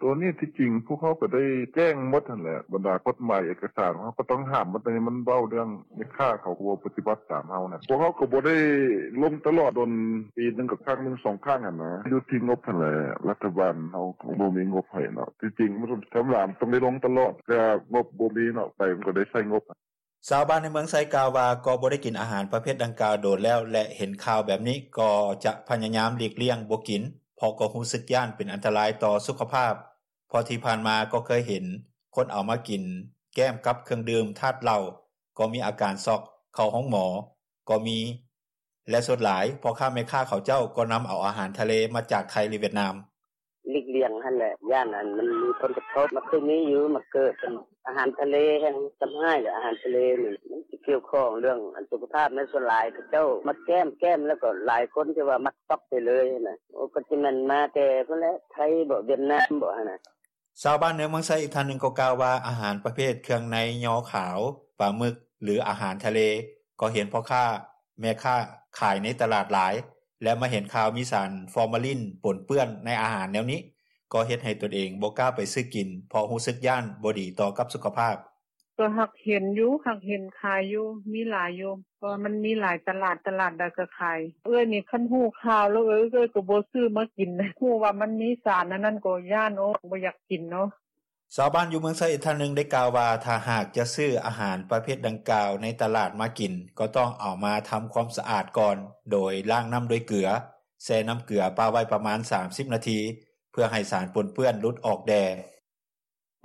ໂຕນີ້ທີ່ຈິງພວກເຮົາກໍໄດ້ແຈ້ງໝົດຫັ້ນແຫຼະ ບັນດາກົດໝາຍເອກະສານ ເຮົາກໍຕ້ອງຫ້າມໝົດ ແຕ່ມັນເວົ້າເລື່ອງແມ່ຄ້າເຂົາກໍບໍ່ປະຕິບັດຕາມເຮົານະ ພວກເຮົາກໍບໍ່ໄດ້ລົງຕະຫຼອດ ດົນປີໜຶ່ງກໍຄັ້ງໜຶ່ງສອງຄັ້ງຫັ້ນນະ ຢູ່ທີ່ງົບຫັ້ນແຫຼະ ລັດຖະບານເຮົາກໍບໍ່ມີງົບໃຫ້ເນາະ ທີ່ຈິງມັນກໍທຳມະດາມັນຕ້ອງໄດ້ລົງຕະຫຼອດ ແຕ່ງົບບໍ່ມີເນາະ ໄປມັນກໍໄດ້ໃຊ້ງົບ. ຊາວບ້ານໃນເມືອງໄຊກ່າວວ່າ ກໍບໍ່ໄດ້ກິນອາຫານປະເພດດັ່ງກ່າວໂດນແລ້ວ ແລະ ເຫັນຂ່າວແບບນີ້ກໍຈະພະຍາຍາມຫຼີກລ້ຽງບໍ່ກິນ ເພາະກໍຮູ້ສຶກຢ້ານເປັນອັນຕະລາຍຕໍ່ສຸຂະພາບ ເພາະທີ່ຜ່ານມາກໍເຄີຍເຫັນຄົນເອົາມາກິນແກ້ມກັບເຄື່ອງດື່ມທາດເຫຼົ້າ ກໍມີອາການຊັອກ ເຂົ້າໂຮງໝໍກໍມີ ແລະ ສ່ວນຫຼາຍພໍ່ຄ້າແມ່ຄ້າເຂົາເຈົ້າກໍນຳເອົາອາຫານທະເລມາຈາກໄທ ຫຼື ຫວຽດນາມ. ຫຼີກລ້ຽງຫັ້ນແຫຼະ ຢ້ານອັນມັນມີຜົນກະທົບ ມັນຄືມີຢູ່ ມັນເກີດເປັນອາຫານທະເລແຮ່ງທຳຮ້າຍ ອາຫານທະເລນີ້ມັນຊິກ່ຽວຂ້ອງເລື່ອງອັນສຸຂະພາບ ແມ່ນສ່ວນຫຼາຍເຂົາເຈົ້າມັກແກ້ມ ແກ້ມແລ້ວກໍຫຼາຍຄົນທີ່ວ່າມັກຊັອກໄປເລີຍຫັ້ນນະ ໂອ ກໍຊິແມ່ນມາແຕ່ພຸ້ນແຫຼະ ໄທບໍ ຫວຽດນາມບໍຫັ້ນນະ. ຊາວບ້ານໃນເມືອງໄຊອີກທ່ານໜຶ່ງກໍກ່າວວ່າ ອາຫານປະເພດເຄື່ອງໃນຍໍຂາວ, ປາໝຶກ ຫຼື ອາຫານທະເລ ກໍເຫັນພໍ່ຄ້າແມ່ຄ້າຂາຍໃນຕະຫຼາດຫຼາຍ ແລະ ມາເຫັນຂ່າວມີສານຟໍມາລີນປົນເປື້ອນໃນອາຫານແນວນີ້ ກໍເຮັດໃຫ້ຕົນເອງບໍ່ກ້າໄປຊື້ກິນ ເພາະຮູ້ສຶກຢ້ານບໍ່ດີຕໍ່ກັບສຸຂະພາບ. ກໍຫາກເຫັນຢູ່ ຫາກເຫັນຂາຍຢູ່ ມີຫຼາຍຢູ່ ເພາະວ່າມັນມີຫຼາຍຕະຫຼາດ ຕະຫຼາດໃດກໍຂາຍ ເອື້ອຍນີ້ຄັນຮູ້ຂ່າວແລ້ວ ເອື້ອຍກໍບໍ່ຊື້ມາກິນ ຮູ້ວ່າມັນມີສານອັນນັ້ນກໍຢ້ານ ໂອ ບໍ່ຢາກກິນເນາະ. ຊາວບ້ານຢູ່ເມືອງໄຊອີກທ່ານໜຶ່ງໄດ້ກ່າວວ່າ ຖ້າຫາກຈະຊື້ອາຫານປະເພດດັ່ງກ່າວໃນຕະຫຼາດມາກິນ ກໍຕ້ອງເອົາມາທຳຄວາມສະອາດກ່ອນ ໂດຍລ້າງນ້ຳດ້ວຍເກືອ ແຊ່ນ້ຳເກືອປະໄວ້ປະມານ 30 ນາທີ ເພື່ອໃຫ້ສານປົນເປື້ອນຫຼຸດອອກແດ່.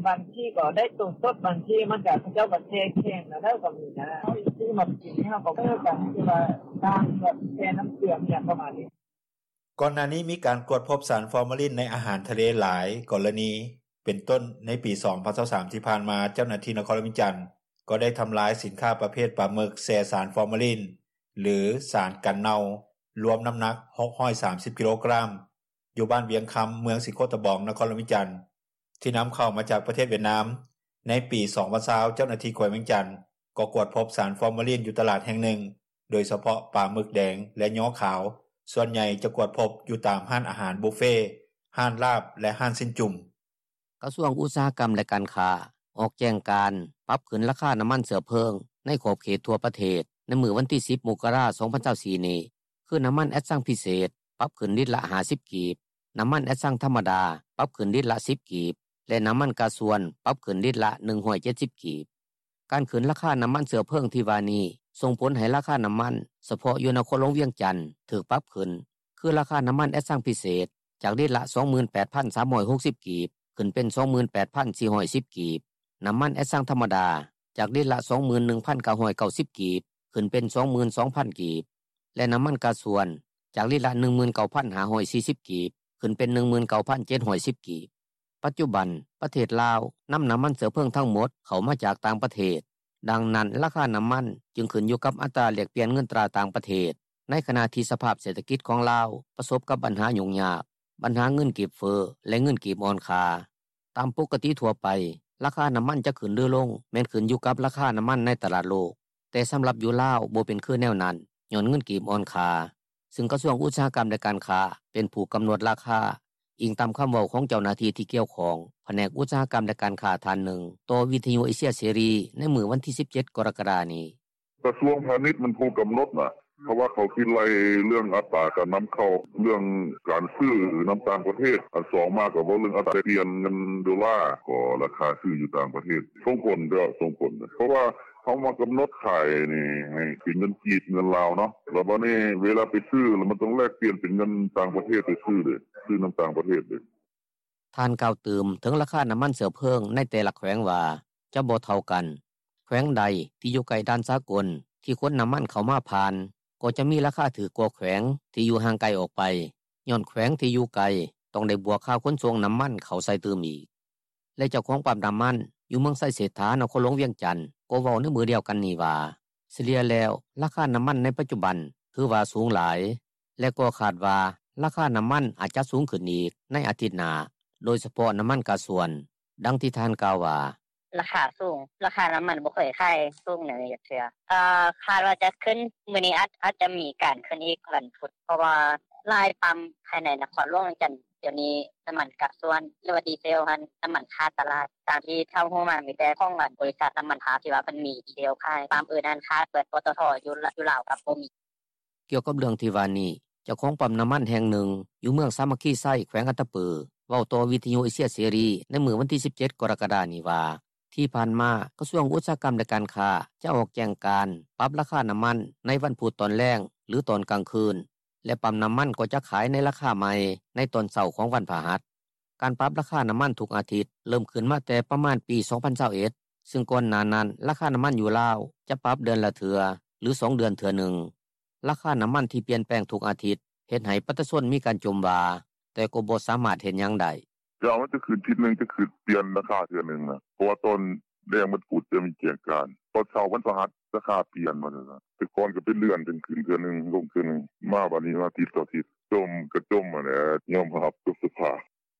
ບາງທີກໍໄດ້ໂຕສົດ ບາງທີມັນກໍ ເຂົາເຈົ້າກໍແຊ່ແຂງແລ້ວກໍມີນະ ເຮົາຊື້ມາກິນນີ້ ເຮົາກໍ ເອີ ກໍຄືວ່າລ້າງກ່ອນ ແຊ່ນ້ຳເກືອ ອີ່ຫຍັງປະມານນີ້. ກ່ອນໜ້ານີ້ມີການກວດພົບສານຟໍມາລີນໃນອາຫານທະເລຫຼາຍກໍລະນີ ເປັນຕົ້ນໃນປີ ສອງພັນຊາວສາມ ທີ່ຜ່ານມາ ເຈົ້າໜ້າທີ່ນະຄອນຫຼວງວຽງຈັນ ກໍໄດ້ທຳລາຍສິນຄ້າປະເພດປາໝຶກແຊ່ສານຟໍມາລີນ ຫຼື ສານກັນເນົ່າ ລວມນ້ຳໜັກ 630 ກິໂລກຣາມ ຢູ່ບ້ານວຽງຄຳ ເມືອງສີໂຄດຕະບອງ ນະຄອນຫຼວງວຽງຈັນ ທີ່ນຳເຂົ້າມາຈາກປະເທດຫວຽດນາມ. ໃນປີ ສອງພັນຊາວ ເຈົ້າໜ້າທີ່ແຂວງວຽງຈັນ ກໍກວດພົບສານຟໍມາລີນຢູ່ຕະຫຼາດແຫ່ງໜຶ່ງ ໂດຍສະເພາະປາໝຶກແດງ ແລະ ຍໍຂາວ ສ່ວນໃຫຍ່ຈະກວດພົບຢູ່ຕາມຮ້ານອາຫານບຸບເຟ, ຮ້ານລາບ ແລະ ຮ້ານຊີ້ນຈຸ້ມ. ກະຊວງອຸດສາຫະກຳ ແລະ ການຄ້າ ອອກແຈ້ງການປັບຂຶ້ນລາຄານ້ຳມັນເຊື້ອເພີງໃນຂອບເຂດທົ່ວປະເທດ ໃນມື້ວັນທີ ສິບ ມົກກະລາ ສອງພັນຊາວສີ່ ນີ້ ຄື ນ້ຳມັນແອັດຊັງພິເສດ ປັບຂຶ້ນລິດລະ ຫ້າສິບ ກີບ, ນ້ຳມັນແອັດຊັງທຳມະດາ ປັບຂຶ້ນລິດລະ ສິບ ກີບ ແລະ ນ້ຳມັນກາຊວນ ປັບຂຶ້ນລິດລະ ໜຶ່ງຮ້ອຍເຈັດສິບ ກີບ. ການຂຶ້ນລາຄານ້ຳມັນເຊື້ອເພີງທີ່ວ່ານີ້ ສົ່ງຜົນໃຫ້ລາຄານ້ຳມັນສະເພາະຢູ່ນະຄອນຫຼວງວຽງຈັນຖືກປັບຂຶ້ນ ຄືລາຄານ້ຳມັນແອັດຊັງພິເສດ ຈາກລິດລະ ສອງໝື່ນແປດພັນສາມຮ້ອຍຫົກສິບ ກີບ ຂຶ້ນເປັນ ສອງໝື່ນແປດພັນສີ່ຮ້ອຍສິບ ກີບ, ນ້ຳມັນແອັດຊັງທຳມະດາ ຈາກລິດລະ ສອງໝື່ນໜຶ່ງພັນເກົ້າຮ້ອຍເກົ້າສິບ ກີບ ຂຶ້ນເປັນ ສອງໝື່ນສອງພັນ ກີບ ແລະ ນ້ຳມັນກາຊວນ ຈາກລິດລະ ໜຶ່ງໝື່ນເກົ້າພັນຫ້າຮ້ອຍສີ່ສິບ ກີບ ຂຶ້ນເປັນ ໜຶ່ງໝື່ນເກົ້າພັນເຈັດຮ້ອຍສິບ ກີບ. ປັດຈຸບັນ ປະເທດລາວ ນຳນ້ຳມັນເຊື້ອເພີງທັງໝົດເຂົ້າມາຈາກຕ່າງປະເທດ ດັ່ງນັ້ນ ລາຄານໍ້າມັນຈຶ່ງຂຶ້ນຢູ່ກັບອັດຕາແລກປ່ຽນເງິນຕາຕ່າງປະເທດ ໃນຂະນະທີ່ສະພາບເສດຖະກິດຂອງລາວປະສົບກັບບັນຫາຫຍຸ້ງຍາກ, ບັນຫາເງິນກີບເຟີ້ ແລະເງິນກີບອ່ອນຄ່າ. ຕາມປົກກະຕິທົ່ວໄປ ລາຄານໍ້າມັນຈະຂຶ້ນຫຼືລົງ ແມ່ນຂຶ້ນຢູ່ກັບລາຄານໍ້າມັນໃນຕະຫຼາດໂລກ, ແຕ່ສຳລັບຢູ່ລາວບໍ່ເປັນຄືແນວນັ້ນ ຍ້ອນເງິນກີບອ່ອນຄ່າ, ຊຶ່ງກະຊວງອຸດສາຫະກຳ ແລະການຄ້າ ເປັນຜູ້ກຳນົດລາຄາ, ອີງຕາມຄຳເວົ້າຂອງເຈົ້າໜ້າທີ່ທີ່ກ່ຽວຂ້ອງ ພະແນກອຸດສາຫະກຳ ແລະການຄ້າທ່ານໜຶ່ງ ຕໍ່ວິທຍຸເອເຊຍເສລີໃນມື້ວັນທີສິບເຈັດ ກໍລະກະດານີ້. ກະຊວງພານິດແມ່ນຜູ້ກຳນົດນະ ເພາະວ່າເຂົາຊິໄລ່ເລື່ອງອັດຕາການນຳເຂົ້າ ເລື່ອງການຊື້ນຳຕ່າງປະເທດ, ອັນສອງມາກໍເວົ້າເລື່ອງອັດຕາແລກປ່ຽນເງິນໂດລາ ກໍລາຄາຊື້ຢູ່ຕ່າງປະເທດ. ສົ່ງຜົນເດ້ ສົ່ງຜົນ ເພາະວ່າເຮົາມາກຳນົດຂາຍນີ້ໃຫ້ເປັນເງິນກີບ ເງິນລາວເນາະ, ແລ້ວບາດນີ້ເວລາໄປຊື້ ແລ້ວມັນຕ້ອງແລກປ່ຽນເປັນເງິນຕ່າງປະເທດໄປຊື້ເດ້, ຊື້ນຳຕ່າງປະເທດເດ້. ທ່ານກ່າວຕື່ມເຖິງລາຄານໍ້າມັນເຊື້ອເພີງໃນແຕ່ລະແຂວງວ່າຈະບໍ່ເທົ່າກັນ. ແຂວງໃດທີ່ຢູ່ໃກ້ດ່ານສາກົນທີ່ຂົນນໍ້າມັນເຂົ້າມາຜ່ານ ກໍຈະມີລາຄາຖືກກວ່າແຂວງທີ່ຢູ່ຫ່າງໄກອອກໄປ, ຍ້ອນແຂວງທີ່ຢູ່ໄກຕ້ອງໄດ້ບວກຄ່າຂົນສົ່ງນໍ້າມັນເຂົ້າໃສ່ຕື່ມອີກ. ແລະເຈົ້າຂອງປໍ້ານໍ້າມັນຢູ່ເມືອງໄຊເສດຖາ ນະຄອນຫຼວງວຽງຈັນ ກໍເວົ້າໃນມື້ດຽວກັນນີ້ວ່າ ສະເລ່ຍແລ້ວລາຄານໍ້າມັນໃນປັດຈຸບັນຖືວ່າສູງຫຼາຍ ແລະກໍຄາດວ່າລາຄານໍ້າມັນອາດຈະສູງຂຶ້ນອີກໃນອາທິດໜ້າ ໂດຍສະເພາະນໍ້າມັນກາຊວນ. ດັ່ງທີ່ທ່ານກ່າວວ່າ: ລາຄາສູງ, ລາຄານໍ້າມັນບໍ່ເຄີຍຂາຍສູງແນວນີ້ຈັກເທື່ອ. ຄາດວ່າຈະຂຶ້ນ, ມື້ນີ້ອາດ ອາດຈະມີການຂຶ້ນອີກວັນພຸດ ເພາະວ່າຫຼາຍປໍ້າພາຍໃນນະຄອນຫຼວງວຽງຈັນ ດຽວນີ້ນໍ້າມັນກາຊວນ ຫຼືວ່າດີເຊວຫັ້ນ ນໍ້າມັນຂາດຕະຫຼາດ. ຕາມທີ່ເທົ່າຮູ້ມາ ມີແຕ່ຂອງອັນບໍລິສັດນໍ້າມັນພາບທີ່ວ່າເພິ່ນມີດີເຊວຂາຍ, ປໍ້າອື່ນຫັ້ນຂາດເບິດ, ປຕທ ຢູ່ລາວກໍບໍ່ມີ. ກ່ຽວກັບເລື່ອງທີ່ວ່ານີ້ ເຈົ້າຂອງປໍ້ານໍ້າມັນແຫ່ງໜຶ່ງຢູ່ເມືອງສາມັກຄີໄຊ ແຂວງອັດຕະປື ເວົ້າຕໍ່ວິທຍຸເອເຊຍເສລີໃນມື້ວັນທີສິບເຈັດ ກໍລະກະດານີ້ວ່າ ທີ່ຜ່ານມາກະຊວງອຸດສາຫະກຳ ແລະການຄ້າ ຈະອອກແຈ້ງການປັບລາຄານໍ້າມັນໃນວັນພຸດຕອນແລງ ຫຼືຕອນກາງຄືນ ແລະປໍ້ານໍ້າມັນກໍຈະຂາຍໃນລາຄາໃໝ່ໃນຕອນເຊົ້າຂອງວັນພະຫັດ. ການປັບລາຄານໍ້າມັນທຸກອາທິດເລີ່ມຂຶ້ນມາແຕ່ປະມານປີສອງພັນຊາວເອັດ ຊຶ່ງກ່ອນໜ້ານັ້ນລາຄານໍ້າມັນຢູ່ລາວຈະປັບເດືອນລະເທື່ອ ຫຼືສອງເດືອນເທື່ອໜຶ່ງ. ລາຄານໍ້າມັນທີ່ປ່ຽນແປງທຸກອາທິດ ເຮັດໃຫ້ປະຊາຊົນມີການຈົ່ມວ່າ ແຕ່ກໍບໍ່ສາມາດເຮັດຫຍັງໄດ້. ເຈົ້າ ມັນຈະຂຶ້ນທິດໜຶ່ງ ຈະຂຶ້ນປ່ຽນລາຄາເທື່ອໜຶ່ງນະ ເພາະວ່າຕອນແລງວັນພຸດຈະມີແຈ້ງການ, ຕອນເຊົ້າວັນພະຫັດລາຄາປ່ຽນວ່າຊັ້ນຊະ. ແຕ່ກ່ອນກໍເປັນເດືອນຈຶ່ງຂຶ້ນເທື່ອໜຶ່ງ ລົງເທື່ອໜຶ່ງ, ມາບາດນີ້ມາທິດຕໍ່ທິດ. ຈົ່ມກໍຈົ່ມຫັ້ນແຫຼະ, ຍອມຮັບກັບສະພາບ.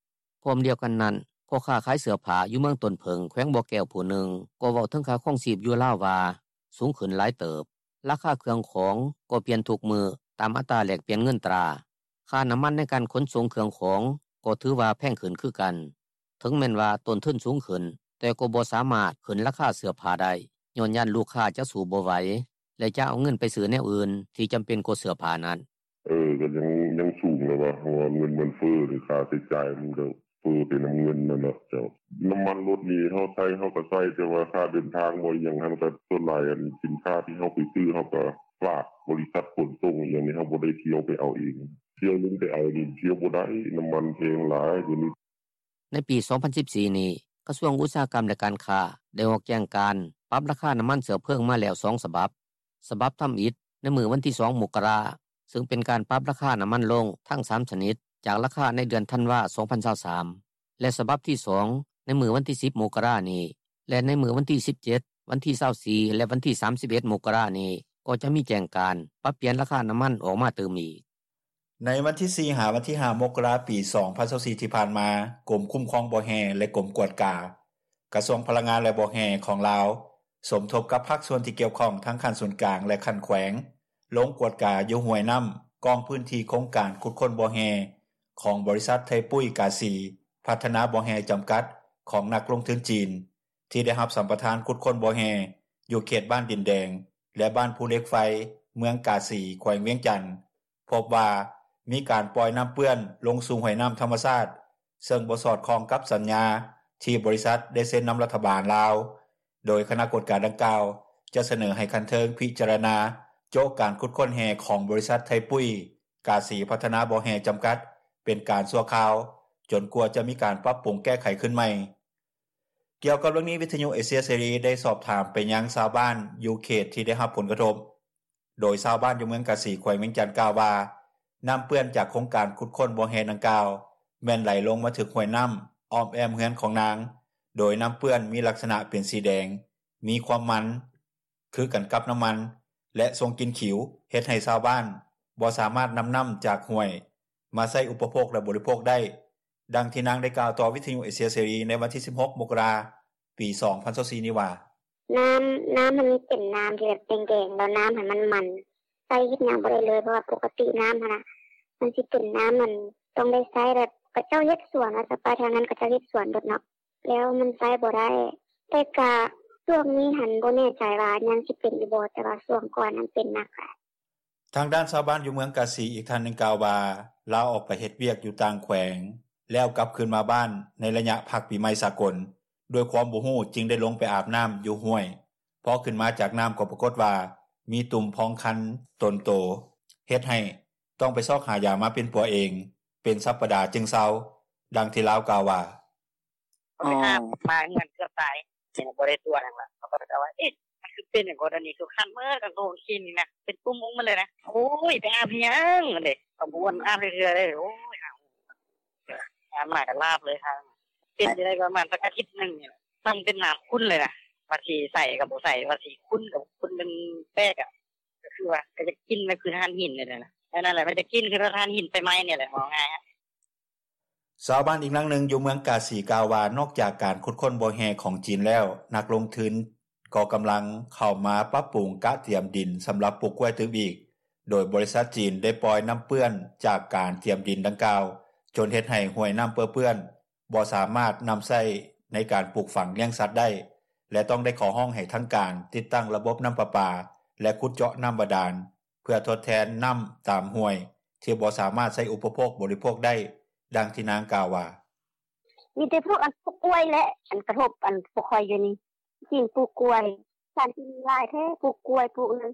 ພ້ອມດຽວກັນນັ້ນ, ພໍ່ຄ້າຂາຍເສື້ອຜ້າຢູ່ເມືອງຕົ້ນເຜິ້ງ ແຂວງບໍ່ແກ້ວຜູ້ໜຶ່ງ ກໍເວົ້າເຖິງຄ່າຄອງຊີບຢູ່ລາວວ່າສູງຂຶ້ນຫຼາຍເຕີບ. ລາຄາເຄື່ອງຂອງກໍປ່ຽນທຸກມື້ຕາມອັດຕາແລກປ່ຽນເງິນຕາ. ຄ່ານໍ້າມັນໃນການຂົນສົ່ງເຄື່ອງຂອງກໍຖືວ່າແພງຂຶ້ນຄືກັນ. ເຖິງແມ່ນວ່າຕົ້ນທຶນສູງຂຶ້ນ, ແຕ່ກໍບໍ່ສາມາດຂຶ້ນລາຄາເສື້ອຜ້າໄດ້, ຍ້ອນຢ້ານລູກຄ້າຈະສູ້ບໍ່ໄຫວ ແລະຈະເອົາເງິນໄປຊື້ແນວອື່ນທີ່ຈຳເປັນກວ່າເສື້ອຜ້ານັ້ນ. ເອີ ກໍຍັງ ຍັງສູງແຫຼະວະ, ເພາະວ່າເງິນມັນເຟີ້ເດ້, ຄ່າໃຊ້ຈ່າຍມັນກໍເຟີ້ໄປນຳເງິນຫັ້ນແຫຼະເຈົ້າ. ນ້ຳມັນລົດນີ້ເຮົາໃຊ້ ເຮົາກໍໃຊ້, ແຕ່ວ່າຄ່າເດີນທາງບໍ່ອີ່ຫຍັງຫັ້ນ ກໍສ່ວນຫຼາຍອັນສິນຄ້າທີ່ເຮົາໄປຊື້ ເຮົາກໍຝາກບໍລິສັດຂົນສົ່ງອີ່ຫຍັງນີ້, ເຮົາບໍ່ໄດ້ທ່ຽວໄປເອົາເອງ. ທ່ຽວລົງໄປເອົານີ້ທ່ຽວບໍ່ໄດ້, ນ້ຳມັນແພງຫຼາຍດຽວນີ້. ໃນປີສອງພັນສິບສີ່ນີ້, ກະຊວງອຸດສາຫະກຳ ແລະການຄ້າ ໄດ້ອອກແຈ້ງການປັບລາຄານ້ຳມັນເຊື້ອເພີງມາແລ້ວສອງສະບັບ. ສະບັບທຳອິດໃນມື້ວັນທີສອງ ມົກກະລາ, ຊຶ່ງເປັນການປັບລາຄານ້ຳມັນລົງທັງສາມຊະນິດ ຈາກລາຄາໃນເດືອນທັນວາ ສອງພັນຊາວສາມ ແລະ ສະບັບທີສອງໃນມື້ວັນທີສິບ ມົກກະລານີ້ ແລະ ໃນມື້ວັນທີສິບເຈັດ, ວັນທີຊາວສີ່ ແລະ ວັນທີສາມສິບເອັດ ມົກກະລານີ້ ກໍຈະມີແຈ້ງການປັບປ່ຽນລາຄານ້ຳມັນອອກມາຕື່ມອີກ. ໃນວັນທີສີ່ ຫາວັນທີຫ້າ ມົກກະລາ ປີສອງພັນຊາວສີ່ ທີ່ຜ່ານມາ, ກົມຄຸ້ມຄອງບໍ່ແຮ່ ແລະ ກົມກວດກາ ກະຊວງພະລັງງານ ແລະ ບໍ່ແຮ່ຂອງລາວ ສົມທົບກັບພາກສ່ວນທີ່ກ່ຽວຂ້ອງທັງຂັ້ນສູນກາງ ແລະ ຂັ້ນແຂວງ ລົງກວດກາຢູ່ຫ້ວຍນ້ຳກ້ອງພື້ນທີ່ໂຄງການຂຸດຄົ້ນບໍ່ແຮ່ຂອງບໍລິສັດໄທປຸ້ຍກາສີພັດທະນາບໍ່ແຮ່ຈຳກັດ ຂອງນັກລົງທຶນຈີນ ທີ່ໄດ້ຮັບສຳປະທານຂຸດຄົ້ນບໍ່ແຮ່ຢູ່ເຂດບ້ານດິນແດງ ແລະ ບ້ານພູເຫຼັກໄຟ ເມືອງກາສີ ແຂວງວຽງຈັນ. ພົບວ່າມີການປ່ອຍນ້ຳເປື້ອນລົງສູ່ຫ້ວຍນ້ຳທຳມະຊາດ ເຊິ່ງບໍ່ສອດຄ່ອງກັບສັນຍາທີ່ບໍລິສັດໄດ້ເຊັນນຳລັດຖະບານລາວ, ໂດຍຄະນະກວດກາດັ່ງກ່າວຈະສະເໜີໃຫ້ຂັ້ນເທິງພິຈາລະນາໂຈະການຂຸດຄົ້ນແຮ່ຂອງບໍລິສັດໄທປຸ້ຍກາສີພັດທະນາບໍ່ແຮ່ຈຳກັດເປັນການຊົ່ວຄາວ ຈົນກວ່າຈະມີການປັບປຸງແກ້ໄຂຄືນໃໝ່. ກ່ຽວກັບເລື່ອງນີ້, ວິທຍຸເອເຊຍເສລີໄດ້ສອບຖາມໄປຍັງຊາວບ້ານຢູ່ເຂດທີ່ໄດ້ຮັບຜົນກະທົບ. ໂດຍຊາວບ້ານຢູ່ເມືອງກາສີ ແຂວງວຽງຈັນ ກ່າວວ່າ ນ້ຳເປື້ອນຈາກໂຄງການຂຸດຄົ້ນບໍ່ແຮ່ດັ່ງກ່າວ ແມ່ນໄຫຼລົງມາຖືກຫ້ວຍນ້ຳອ້ອມແອ້ມເຮືອນຂອງນາງ, ໂດຍນ້ຳເປື້ອນມີລັກສະນະເປັນສີແດງ ມີຄວາມມັນ ຄືກັນກັບນໍ້າມັນ ແລະ ສົ່ງກິ່ນຂິວ ເຮັດໃຫ້ຊາວບ້ານ ບໍ່ສາມາດນຳນໍ້າຈາກຫ້ວຍ ມາໃຊ້ອຸປະໂພກ ແລະ ບໍລິໂພກໄດ້. ດັ່ງທີ່ນາງໄດ້ກ່າວຕໍ່ວິທຍຸເອເຊຍເສລີ ໃນວັນທີສິບຫົກ ມົກກະລາ ປີສອງພັນຊາວສີ່ນີ້ວ່າ: “ນໍ້າ ນໍ້າຫັ້ນມັນເປັນນໍ້າທີ່ແບບແດງໆ ແລ້ວນໍ້າຫັ້ນມັນມັນ ໃຊ້ເຮັດຫຍັງບໍ່ໄດ້ເລີຍ ເພາະວ່າປົກກະຕິນໍ້າຫັ້ນນ່າ ມັນຊິເປັນນໍ້າ ອັນ ຕ້ອງໄດ້ໃຊ້ແບບ ເຂົາເຈົ້າເຮັດສວນວ່າຊັ້ນ ໄປທາງນັ້ນເຂົາເຈົ້າເຮັດສວນເບິດເນາະ ແລ້ວມັນໃຊ້ບໍ່ໄດ້ ແຕ່ກະຊ່ວງນີ້ຫັ້ນ ບໍ່ແນ່ໃຈວ່າຍັງຊິເປັນຢູ່ບໍ່ ແຕ່ວ່າຊ່ວງກ່ອນຫັ້ນເປັນໜັກຫຼາຍ.” ທາງດ້ານຊາວບ້ານຢູ່ເມືອງກາສີ ອີກທ່ານໜຶ່ງກ່າວວ່າ ລາວອອກໄປເຮັດວຽກຢູ່ຕ່າງແຂວງ ແລ້ວກັບຄືນມາບ້ານໃນໄລຍະພັກປີໃໝ່ສາກົນ ດ້ວຍຄວາມບໍ່ຮູ້ຈຶ່ງໄດ້ລົງໄປອາບນໍ້າຢູ່ຫ້ວຍ ພໍຂຶ້ນມາຈາກນໍ້າກໍປາກົດວ່າ ມີຕຸ່ມພອງຄັນຕົນໂຕ ເຮັດໃຫ້ຕ້ອງໄປຊອກຫາຢາມາປິ່ນປົວເອງ ເປັນສັບປະດາຈຶ່ງເຊົາ. ດັ່ງທີ່ລາວກ່າວວ່າ: “ໄປຫາໝໍເຮືອນເກືອບຕາຍ ບໍ່ໄດ້ຕົວະຫຍັງລະ ເຂົາກໍເຈົ້າວ່າ ເອະ ມັນຄືເປັນຫຍັງກໍດຽວນີ້ ຄືຄັນເໝິດ ກາງໂຕກາງຄືນນີ້ນະ ເປັນຕຸ່ມອອກໝົດເລີຍນະ ໂອ້ຍ ໄປອາບເຮັດຫຍັງຫັ້ນເດ ກໍບໍ່ອາບຈັກເທື່ອເດ ໂອ້ຍ ອາບມາກໍລາບເລີຍ ເປັນຢູ່ໄດ້ປະມານຈັກອາທິດໜຶ່ງນີ້ແຫຼະ ມັນເປັນນໍ້າຂຸ້ນເລີຍນະ ວ່າຊິໃສກໍບໍ່ໃສ ວ່າຊິຂຸ້ນກໍຂຸ້ນ ມັນແປກອະ ກໍຄືວ່າ ກໍຢາກກິນ ມັນຄືຖ່ານຫີນນີ້ແຫຼະ ອັນນັ້ນແຫຼະ ມັນຈະກິນຄືຖ່ານຫີນໄຟໄໝ້ນີ້ແຫຼະ ເວົ້າງ່າຍ.” ຊາວບ້ານອີກນາງໜຶ່ງຢູ່ເມືອງກາສີກ່າວວ່າ ນອກຈາກການຂຸດຄົ້ນບໍ່ແຮ່ຂອງຈີນແລ້ວ ນັກລົງທຶນກໍກຳລັງເຂົ້າມາປັບປຸງກະຕຽມດິນສຳລັບປູກກ້ວຍຕື່ມອີກ ໂດຍບໍລິສັດຈີນໄດ້ປ່ອຍນໍ້າເປື້ອນຈາກການຕຽມດິນດັ່ງກ່າວ ຈົນເຮັດໃຫ້ຫ້ວຍນໍ້າເປິເປື້ອນ ບໍ່ສາມາດນຳໃຊ້ໃນການປູກຝັງລ້ຽງສັດໄດ້ ແລະ ຕ້ອງໄດ້ຂໍຮ້ອງໃຫ້ທາງການຕິດຕັ້ງລະບົບນໍ້າປະປາ ແລະ ຂຸດເຈາະນໍ້າບາດານ ເພື່ອທົດແທນນໍ້າຕາມຫ້ວຍ ທີ່ບໍ່ສາມາດໃຊ້ອຸປະໂພກບໍລິໂພກໄດ້. ດັ່ງທີ່ນາງກ່າວວ່າ: “ມີແຕ່ພວກອັນປູກກ້ວຍແຫຼະ ອັນກະທົບອັນພວກຂ້ອຍຢູ່ນີ້ ຈີນປູກກ້ວຍ ສານຈີນຫຼາຍແທ້ ປູກກ້ວຍ ປູກນັ້ນ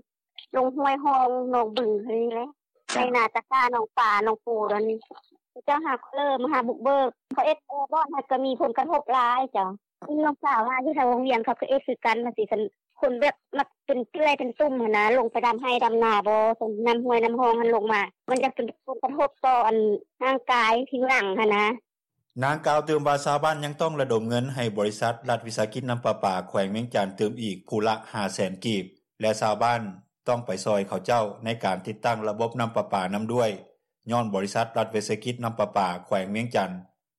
ລົງຫ້ວຍຮ່ອງ ໜອງບຶງຫັ້ນແຫຼະ ໄຮ່ນາຕາກ້າ ໜອງປາ ໜອງປູດອນນີ້ ເຂົາເຈົ້າຫາເລີມາຫາບຸກເບີກ ເຂົາເຮັດບ່ອນຫັ້ນກໍມີຜົນກະທົບຫຼາຍເຈົ້າ ນ້ອງສາວວ່າຢູ່ແຖວວັງວຽງ ເຂົາກໍເຮັດຄືກັນວ່າຊີ້ ຄັນຄົນແບບມັກເປັນເປື່ອຍເປັນຕຸ່ມຫັ້ນນະ ລົງໄປດຳໄຮ່ດຳນາບໍ່ ນ້ຳຫ້ວຍນ້ຳຮ່ອງຫັ້ນລົງມາ ມັນຈະເປັນຜົນກະທົບຕໍ່ອັນຮ່າງກາຍຜິວໜັງຫັ້ນນະ.” ນາງກ່າວຕື່ມວ່າ ຊາວບ້ານຍັງຕ້ອງລະດົມເງິນໃຫ້ບໍລິສັດລັດວິສາຫະກິດນໍ້າປະປາແຂວງວຽງຈັນຕື່ມອີກຜູ້ລະຫ້າແສນກີບ ແລະ ຊາວບ້ານຕ້ອງໄປຊ່ອຍເຂົາເຈົ້າໃນການຕິດຕັ້ງລະບົບນໍ້າປະປານຳດ້ວຍ ຍ້ອນບໍລິສັດລັດວິສາຫະກິດນໍ້າປະປາແຂວງວຽງຈັນ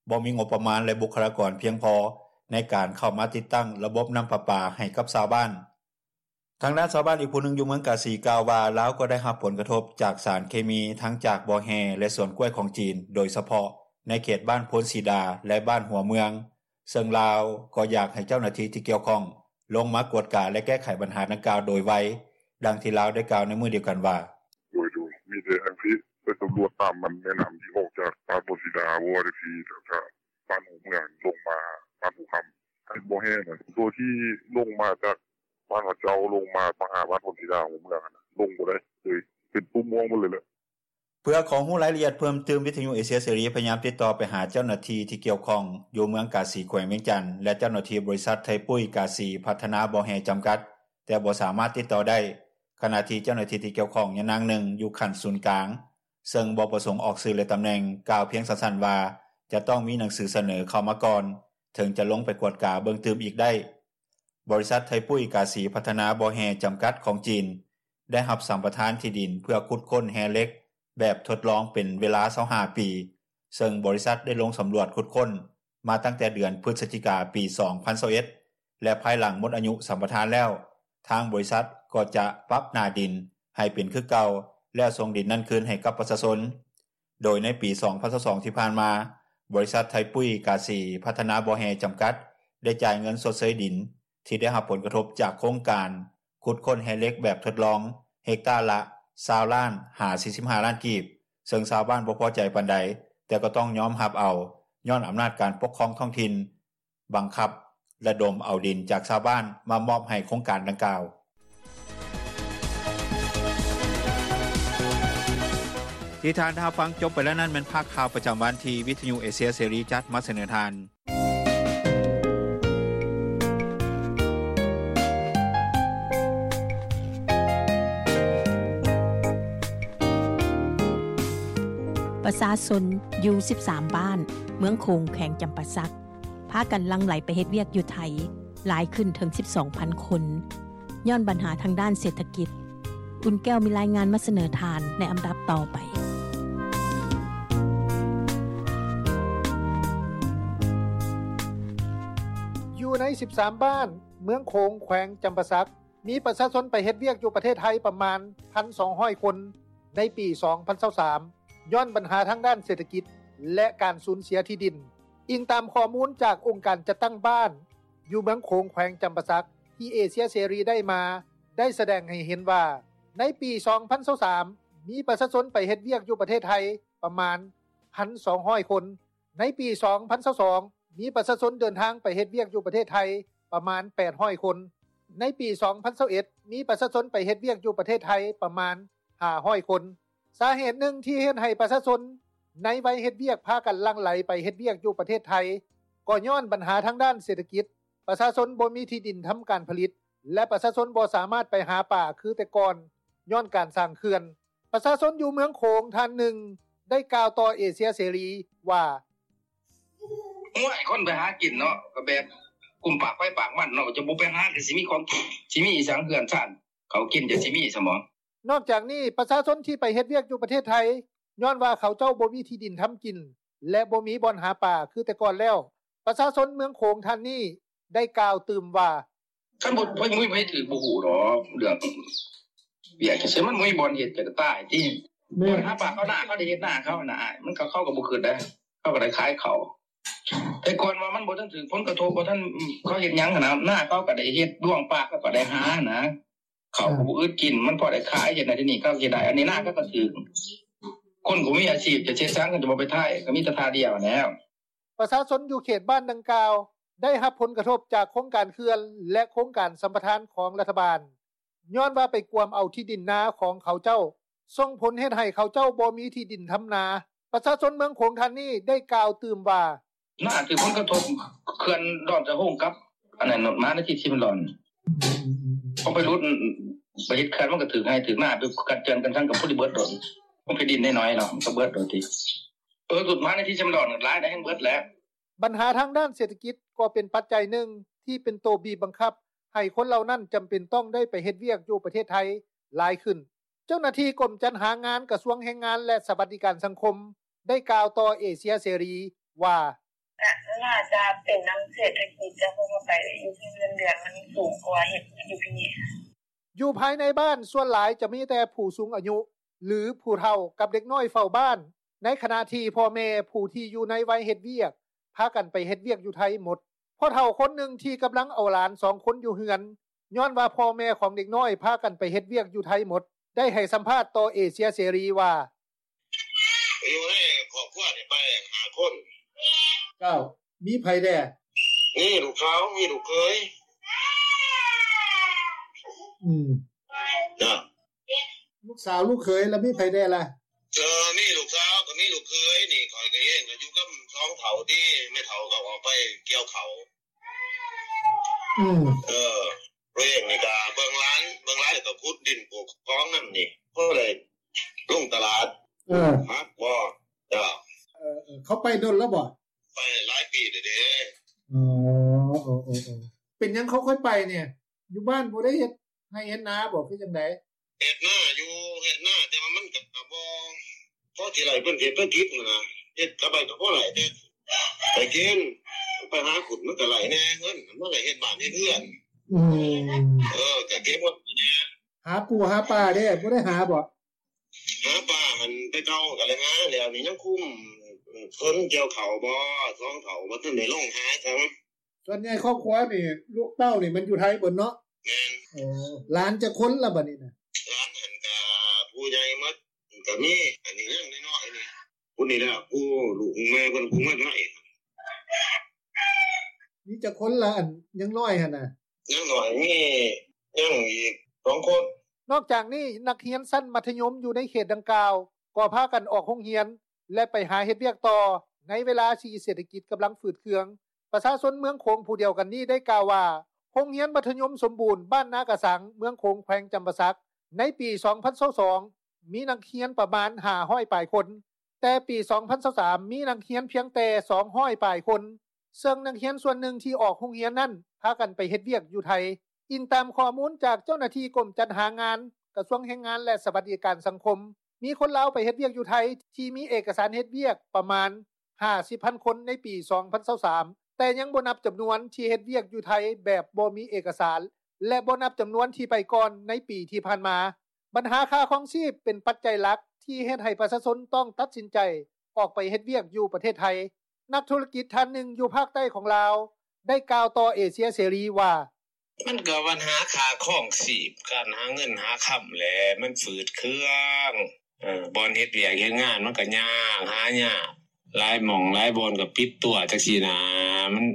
ບໍ່ມີງົບປະມານ ແລະ ບຸກຄະລາກອນພຽງພໍໃນການເຂົ້າມາຕິດຕັ້ງລະບົບນໍ້າປະປາໃຫ້ກັບຊາວບ້ານ. ທາງດ້ານຊາວບ້ານອີກຜູ້ໜຶ່ງຢູ່ເມືອງກາສີກ່າວວ່າ ລາວກໍໄດ້ຮັບຜົນກະທົບຈາກສານເຄມີທັງຈາກບໍ່ແຮ່ ແລະ ສວນກ້ວຍຂອງຈີນ ໂດຍສະເພາະໃນເຂດບ້ານໂພນສີດາ ແລະ ບ້ານຫົວເມືອງ ເຊິ່ງລາວກໍຢາກໃຫ້ເຈົ້າໜ້າທີ່ທີ່ກ່ຽວຂ້ອງລົງມາກວດກາ ແລະ ແກ້ໄຂບັນຫາດັ່ງກ່າວໂດຍໄວ. ດັ່ງທີ່ລາວໄດ້ກ່າວໃນມື້ດຽວກັນວ່າ: “ໂດຍໆ ມີແຕ່ອັນຊີ້ ໄປສຳຫຼວດຕາມແມ່ນໍ້າທີ່ອອກຈາກບ້ານໂພນສີດາບໍ່ຈັ່ງຊີ້ ແລ້ວກະບ້ານຫົວເມືອງລົງມາບ້ານພູຄຳ ເຂດບໍ່ແຮ່ນະ ໂຕທີ່ລົງມາຈາກບ້ານເຂົາເຈົ້າລົງມາຫາບ້ານໂພນສີດາຫົວເມືອງຫັ້ນນະ ລົງບໍ່ໄດ້ເລີຍ ເປັນຕຸ່ມອອກໝົດເລີຍແຫຼະ.” ເພື່ອຂໍຮູ້ລາຍລະອຽດເພີ່ມຕື່ມ ວິທຍຸເອເຊຍເສລີ ພະຍາຍາມຕິດຕໍ່ໄປຫາເຈົ້າໜ້າທີ່ທີ່ກ່ຽວຂ້ອງຢູ່ເມືອງກາສີ ແຂວງວຽງຈັນ ແລະ ເຈົ້າໜ້າທີ່ບໍລິສັດໄທປຸ້ຍກາສີພັດທະນາບໍ່ແຮ່ຈຳກັດ ແຕ່ບໍ່ສາມາດຕິດຕໍ່ໄດ້ ຂະນະທີ່ເຈົ້າໜ້າທີ່ທີ່ກ່ຽວຂ້ອງຍານາງໜຶ່ງຢູ່ຂັ້ນສູນກາງ ເຊິ່ງບໍ່ປະສົງອອກຊື່ ແລະ ຕຳແໜ່ງ ກ່າວພຽງສັ້ນໆວ່າ ຈະຕ້ອງມີໜັງສືສະເໜີເຂົ້າມາກ່ອນ ເຖິງຈະລົງໄປກວດກາເບິ່ງຕື່ມອີກໄດ້. ບໍລິສັດໄທປຸ້ຍກາສີພັດທະນາບໍ່ແຮ່ຈຳກັດຂອງຈີນ ໄດ້ຮັບສຳປະທານທີ່ດິນເພື່ອຂຸດຄົ້ນແຮ່ເຫຼັກແບບທົດລອງເປັນເວລາຊາວຫ້າປີ ເຊິ່ງບໍລິສັດໄດ້ລົງສຳຫຼວດຂຸດຄົ້ນມາຕັ້ງແຕ່ເດືອນພຶສຈິກາ ປີສອງພັນຊາວເອັດ ແລະ ພາຍຫຼັງໝົດອາຍຸສຳປະທານແລ້ວ ທາງບໍລິສັດກໍຈະປັບໜ້າດິນໃຫ້ເປັນຄືເກົ່າ ແລ້ວສົ່ງດິນນັ້ນຄືນໃຫ້ກັບປະຊາຊົນ. ໂດຍໃນປີສອງພັນຊາວສອງທີ່ຜ່ານມາ, ບໍລິສັດໄທປຸ້ຍກາສີພັດທະນາບໍ່ແຮ່ຈຳກັດ ໄດ້ຈ່າຍເງິນຊົດເຊີຍດິນທີ່ໄດ້ຮັບຜົນກະທົບຈາກໂຄງການຂຸດຄົ້ນແຮ່ເຫຼັກແບບທົດລອງ ເຮັກຕາລະຊາວລ້ານຫາສີ່ສິບຫ້າລ້ານກີບ, ເຊິ່ງຊາວບ້ານບໍ່ພໍໃຈປານໃດ, ແຕ່ກໍຕ້ອງຍອມຮັບເອົາ ຍ້ອນອຳນາດການປົກຄອງທ້ອງຖິ່ນ ບັງຄັບລະດົມເອົາດິນຈາກຊາວບ້ານມາມອບໃຫ້ໂຄງການດັ່ງກ່າວ. ທີ່ທ່ານໄດ້ຮັບຟັງຈົບໄປແລ້ວນັ້ນ ແມ່ນພາກຂ່າວປະຈຳວັນທີ່ວິທະຍຸເອເຊຍເສລີຈັດມາສະເໜີທ່ານ. ປະຊາຊົນຢູ່ສິບສາມບ້ານ ເມືອງໂຂງ ແຂວງຈຳປາສັກ ພາກັນຫຼັ່ງໄຫຼໄປເຮັດວຽກຢູ່ໄທ ຫຼາຍຂຶ້ນເຖິງສິບສອງພັນຄົນ ຍ້ອນບັນຫາທາງດ້ານເສດຖະກິດ. ອຸ່ນແກ້ວມີລາຍງານມາສະເໜີທ່ານໃນອຳດັບຕໍ່ໄປ. ຢູ່ໃນສິບສາມບ້ານເມືອງໂຂງ ແຂວງຈຳປາສັກ ມີປະຊາຊົນໄປເຮັດວຽກຢູ່ປະເທດໄທປະມານ ໜຶ່ງພັນສອງຮ້ອຍຄົນ ໃນປີສອງພັນຊາວສາມ ຍ້ອນບັນຫາທາງດ້ານເສດຖະກິດ ແລະ ການສູນເສຍທີ່ດິນ. ອີງຕາມຂໍ້ມູນຈາກອົງການຈັດຕັ້ງບ້ານຢູ່ເມືອງໂຂງ ແຂວງຈຳປາສັກ ທີ່ເອເຊຍເສລີໄດ້ມາ ໄດ້ສະແດງໃຫ້ເຫັນວ່າ ໃນປີສອງພັນຊາວສາມ ມີປະຊາຊົນໄປເຮັດວຽກຢູ່ປະເທດໄທປະມານ ໜຶ່ງພັນສອງຮ້ອຍຄົນ. ໃນປີສອງພັນຊາວສອງ ມີປະຊາຊົນເດີນທາງໄປເຮັດວຽກຢູ່ປະເທດໄທປະມານ ແປດຮ້ອຍຄົນ. ໃນປີສອງພັນຊາວເອັດ ມີປະຊາຊົນໄປເຮັດວຽກຢູ່ປະເທດໄທປະມານ ຫ້າຮ້ອຍຄົນ. ສາເຫດໜຶ່ງທີ່ເຮັດໃຫ້ປະຊາຊົນໃນໄວເຮັດວຽກພາກັນຫຼັ່ງໄຫຼໄປເຮັດວຽກຢູ່ປະເທດໄທ ກໍຍ້ອນບັນຫາທາງດ້ານເສດຖະກິດ, ປະຊາຊົນບໍ່ມີທີ່ດິນທຳການຜະລິດ ແລະ ປະຊາຊົນບໍ່ສາມາດໄປຫາປາຄືແຕ່ກ່ອນ ຍ້ອນການສ້າງເຂື່ອນ. ປະຊາຊົນຢູ່ເມືອງໂຂງທ່ານໜຶ່ງ ໄດ້ກ່າວຕໍ່ເອເຊຍເສລີວ່າ: ໂອ້ຍ ຄົນໄປຫາກິນເນາະ ກໍແບບກຸ້ມປາກໄປປາກມັນເນາະ ຈະບໍ່ໄປຫາ ກໍຊິມີຂອງກິນ ຊິມີອີ່ຫຍັງເຮືອນຊານ ເຂົ້າກິນຈະຊິມີຊະບໍ? ນອກຈາກນີ້ ປະຊາຊົນທີ່ໄປເຮັດວຽກຢູ່ປະເທດໄທ ຍ້ອນວ່າເຂົາເຈົ້າບໍ່ມີທີ່ດິນທຳກິນ ແລະ ບໍ່ມີບ່ອນຫາປາຄືແຕ່ກ່ອນແລ້ວ. ປະຊາຊົນເມືອງໂຂງທ່ານນີ້ ໄດ້ກ່າວຕື່ມວ່າ: ຄັນບໍ່ ບໍ່ມີໃຜຖືກ ບໍ່ຮູ້ດອກ ເລື່ອງວຽກຈັ່ງຊີ້ ມັນບໍ່ມີບ່ອນເຮັດ ກໍຕາຍຕິ. ແມ່ນ ຫາປາເຂົາ ນາເຂົາໄດ້ເຮັດນາເຂົານະ ມັນກໍ ເຂົາກໍບໍ່ຄິດໄດ໋ ເຂົາກໍໄດ້ຂາຍເຂົ້າ. ແຕ່ກ່ອນວ່າມັນບໍ່ທັນຖືກຜົນກະທົບ ບໍ່ທັນ ເຂົາເຮັດຫຍັງຫັ້ນນະ ນາເຂົາກໍໄດ້ເຮັດ ດວງປາກເຂົາກໍໄດ້ຫານະ ເຂົ້າກໍບໍ່ອຶດກິນ ມັນພໍໄດ້ຂາຍ ເຮັດນັ້ນເຮັດນີ້ເຂົາຊິໄດ້ ອັນນີ້ນາເຂົາກໍຖືກ. ຄົນບໍ່ມີອາຊີບຈະເຮັດຫຍັງ ກໍຈະບໍ່ໄປໄທ ກໍມີແຕ່ທ່າດຽວຫັ້ນແຫຼ້ວ. ປະຊາຊົນຢູ່ເຂດບ້ານດັ່ງກ່າວ ໄດ້ຮັບຜົນກະທົບຈາກໂຄງການເຂື່ອນ ແລະ ໂຄງການສຳປະທານຂອງລັດຖະບານ ຍ້ອນວ່າໄປກວມເອົາທີ່ດິນນາຂອງເຂົາເຈົ້າ ສົ່ງຜົນເຮັດໃຫ້ເຂົາເຈົ້າບໍ່ມີທີ່ດິນທຳນາ. ປະຊາຊົນເມືອງໂຂງທ່ານນີ້ໄດ້ກ່າວຕື່ມວ່າ: ນາຖືກຜົນກະທົບ ເຂື່ອນດອນສະໂຮງກັບອັນນັ້ນ ມະຫານາທິດຊີເມນດອນ ອືມໆໆ ເຂົາໄປຫຼຸດ ໄປເຮັດເຂື່ອນ ມັນກໍຖືກໄຮ່ຖືກນາ ໄປກັດເຈື່ອນກັນທັງກັບຜູ້ທີ່ເບິດໂດດ ມັນເປັນດິນນ້ອຍໆເນາະ ມັນກໍເບິດໂດດຕິ. ເອີ ຫຼຸດມະຫານາທິດຊີເມນດອນຫຼາຍໄດ໋ ແຮ່ງເບິດແຫຼະ. ບັນຫາທາງດ້ານເສດຖະກິດກໍເປັນປັດໄຈໜຶ່ງທີ່ເປັນໂຕບີບບັງຄັບໃຫ້ຄົນເຫຼົ່ານັ້ນຈຳເປັນຕ້ອງໄດ້ໄປເຮັດວຽກຢູ່ປະເທດໄທຫຼາຍຂຶ້ນ. ເຈົ້າໜ້າທີ່ກົມຈັດຫາງານກະຊວງແຮງງານ ແລະ ສະຫວັດດີການສັງຄົມ ໄດ້ກ່າວຕໍ່ເອເຊຍເສລີວ່າ: ກະໜ້າຈະເປັນນຳເສດຖະກິດ ເຈົ້າ ເພາະວ່າໄປຢູ່ທີ່ເງິນເດືອນມັນສູງກວ່າເຮັດຢູ່ພີ້. ຢູ່ພາຍໃນບ້ານສ່ວນຫຼາຍຈະມີແຕ່ຜູ້ສູງອາຍຸ ຫຼື ຜູ້ເຖົ້າກັບເດັກນ້ອຍເຝົ້າບ້ານ, ໃນຂະນະທີ່ພໍ່ແມ່ຜູ້ທີ່ຢູ່ໃນໄວເຮັດວຽກ ພາກັນໄປເຮັດວຽກຢູ່ໄທໝົດ. ພໍ່ເຖົ້າຄົນໜຶ່ງທີ່ກຳລັງເອົາຫຼານສອງຄົນຢູ່ເຮືອນ ຍ້ອນວ່າພໍ່ແມ່ຂອງເດັກນ້ອຍພາກັນໄປເຮັດວຽກຢູ່ໄທໝົດ ໄດ້ໃຫ້ສຳພາດຕໍ່ເອເຊຍເສລີວ່າ: ຢູ່ໃນຄອບຄົວນີ້ໄປຫ້າຄົນ. ເຈົ້າ ມີໃຜແດ່? ມີລູກສາວ ມີລູກເຂີຍ. ອືມ ເຈົ້າ ລູກສາວ ລູກເຂີຍ ແລ້ວມີໃຜແດ່ລະ? ເອີ ມີລູກສາວ ກໍມີລູກເຂີຍນີ້ ຂ້ອຍກໍເອງກໍຢູ່ກັບສອງເຖົ້າຕິ ແມ່ເຖົ້າກໍອອກໄປກ່ຽວເຂົ້າ. ອືມ ເອີ ໂຕເອງນີ້ກໍເບິ່ງຫຼານ ເບິ່ງຫຼານ ແລ້ວກໍຂຸດດິນປູກຂອງນຳນີ້ ພໍໄດ້ລົງຕະຫຼາດ. ເອີ ມັກບໍ່? ເຈົ້າ ເອີ ເອີ ເຂົາໄປດົນແລ້ວບໍ່? ໄປຫຼາຍປີແລ້ວເດ້. ອໍ ເອີ ເອີ ເປັນຫຍັງເຂົາຄ່ອຍໄປນີ້? ຢູ່ບ້ານບໍ່ໄດ້ເຮັດໄຮ່ເຮັດນາບໍ່ ຄືຈັ່ງໃດ? ເຮັດນາຢູ່ ເຮັດນາ ແຕ່ວ່າມັນກໍບໍ່ພໍຊິໄດ້ເປັນເສດຖະກິດຫັ້ນນະ ເຮັດກັບໄປກໍພໍໄດ້ແຕ່ໄປກິນ ໄປຫາຂຸດມັນກໍໄດ້ແດ່ເງິນ ມັນກໍເຮັດບ້ານເຮັດເຮືອນ. ອືມ ເອີ ກໍເກັບເງິນແດ່. ຫາປູຫາປາເດ້ ບໍ່ໄດ້ຫາບໍ່? ຫາປາຫັ້ນແຕ່ເກົ່າກໍໄດ້ຫາແລ້ວ ນີ້ຍັງຄຸມເພິ່ນກ່ຽວເຂົ້າບໍ່ ສອງເຖົ້າບໍ່ທັນໄດ້ລົງຫາຊ້ຳ. ສ່ວນໃຫຍ່ຄອບຄົວນີ້ ລູກເຕົ້ານີ້ມັນຢູ່ໄທເບິດເນາະ? ແມ່ນ. ໂອ້ ຫຼານຈັກຄົນລະບັດນີ້ນະ? ຫຼານຫັ້ນກະຜູ້ໃຫຍ່ໝົດ ກະມີ ອັນນີ້ຍັງນ້ອຍໆນີ້ ຜູ້ນີ້ລະ ຜູ້ລູກແມ່ເພິ່ນຜູ້ມາໃໝ່. ມີຈັກຄົນລະ ອັນຍັງນ້ອຍຫັ້ນນະ? ຍັງນ້ອຍມີ ຍັງອີກສອງຄົນ. ນອກຈາກນີ້ ນັກຮຽນຊັ້ນມັດທະຍົມຢູ່ໃນເຂດດັ່ງກ່າວ ກໍພາກັນອອກໂຮງຮຽນ ແລະ ໄປຫາເຮັດວຽກຕໍ່ ໃນເວລາທີ່ເສດຖະກິດກຳລັງຝືດເຄືອງ. ປະຊາຊົນເມືອງໂຂງຜູ້ດຽວກັນນີ້ໄດ້ກ່າວວ່າ ໂຮງຮຽນມັດທະຍົມສົມບູນ ບ້ານນາກະສັງ ເມືອງໂຂງ ແຂວງຈຳປາສັກ ໃນປີສອງພັນຊາວສອງ ມີນັກຮຽນປະມານຫ້າຮ້ອຍປາຍຄົນ, ແຕ່ປີສອງພັນຊາວສາມ ມີນັກຮຽນພຽງແຕ່ສອງຮ້ອຍປາຍຄົນ, ເຊິ່ງນັກຮຽນສ່ວນໜຶ່ງທີ່ອອກໂຮງຮຽນນັ້ນ ພາກັນໄປເຮັດວຽກຢູ່ໄທ. ອີງຕາມຂໍ້ມູນຈາກເຈົ້າໜ້າທີ່ກົມຈັດຫາງານ ກະຊວງແຮງງານ ແລະ ສະຫວັດດີການສັງຄົມ, ມີຄົນລາວໄປເຮັດວຽກຢູ່ໄທທີ່ມີເອກະສານເຮັດວຽກປະມານຫ້າສິບພັນຄົນໃນປີສອງພັນຊາວສາມ ແຕ່ຍັງບໍ່ນັບຈຳນວນທີ່ເຮັດວຽກຢູ່ໄທແບບບໍ່ມີເອກະສານ ແລະ ບໍ່ນັບຈຳນວນທີ່ໄປກ່ອນໃນປີທີ່ຜ່ານມາ. ບັນຫາຄ່າຄອງຊີບເປັນປັດໄຈຫຼັກທີ່ເຮັດໃຫ້ປະຊາຊົນຕ້ອງຕັດສິນໃຈອອກໄປເຮັດວຽກຢູ່ປະເທດໄທ. ນັກທຸລະກິດທ່ານໜຶ່ງຢູ່ພາກໃຕ້ຂອງລາວ ໄດ້ກ່າວຕໍ່ເອເຊຍເສລີວ່າ: ມັນກໍບັນຫາຄ່າຄອງຊີບ ການຫາເງິນຫາຄຳແຫຼະ ມັນຝືດເຄືອງ. ເອີ ບ່ອນເຮັດວຽກເຮັດງານມັນກໍຍາກ ຫາຍາກ ຫຼາຍໝ່ອງຫຼາຍບ່ອນກໍປິດຕົວ ຈັ່ງຊີ້ນະ. ມັນ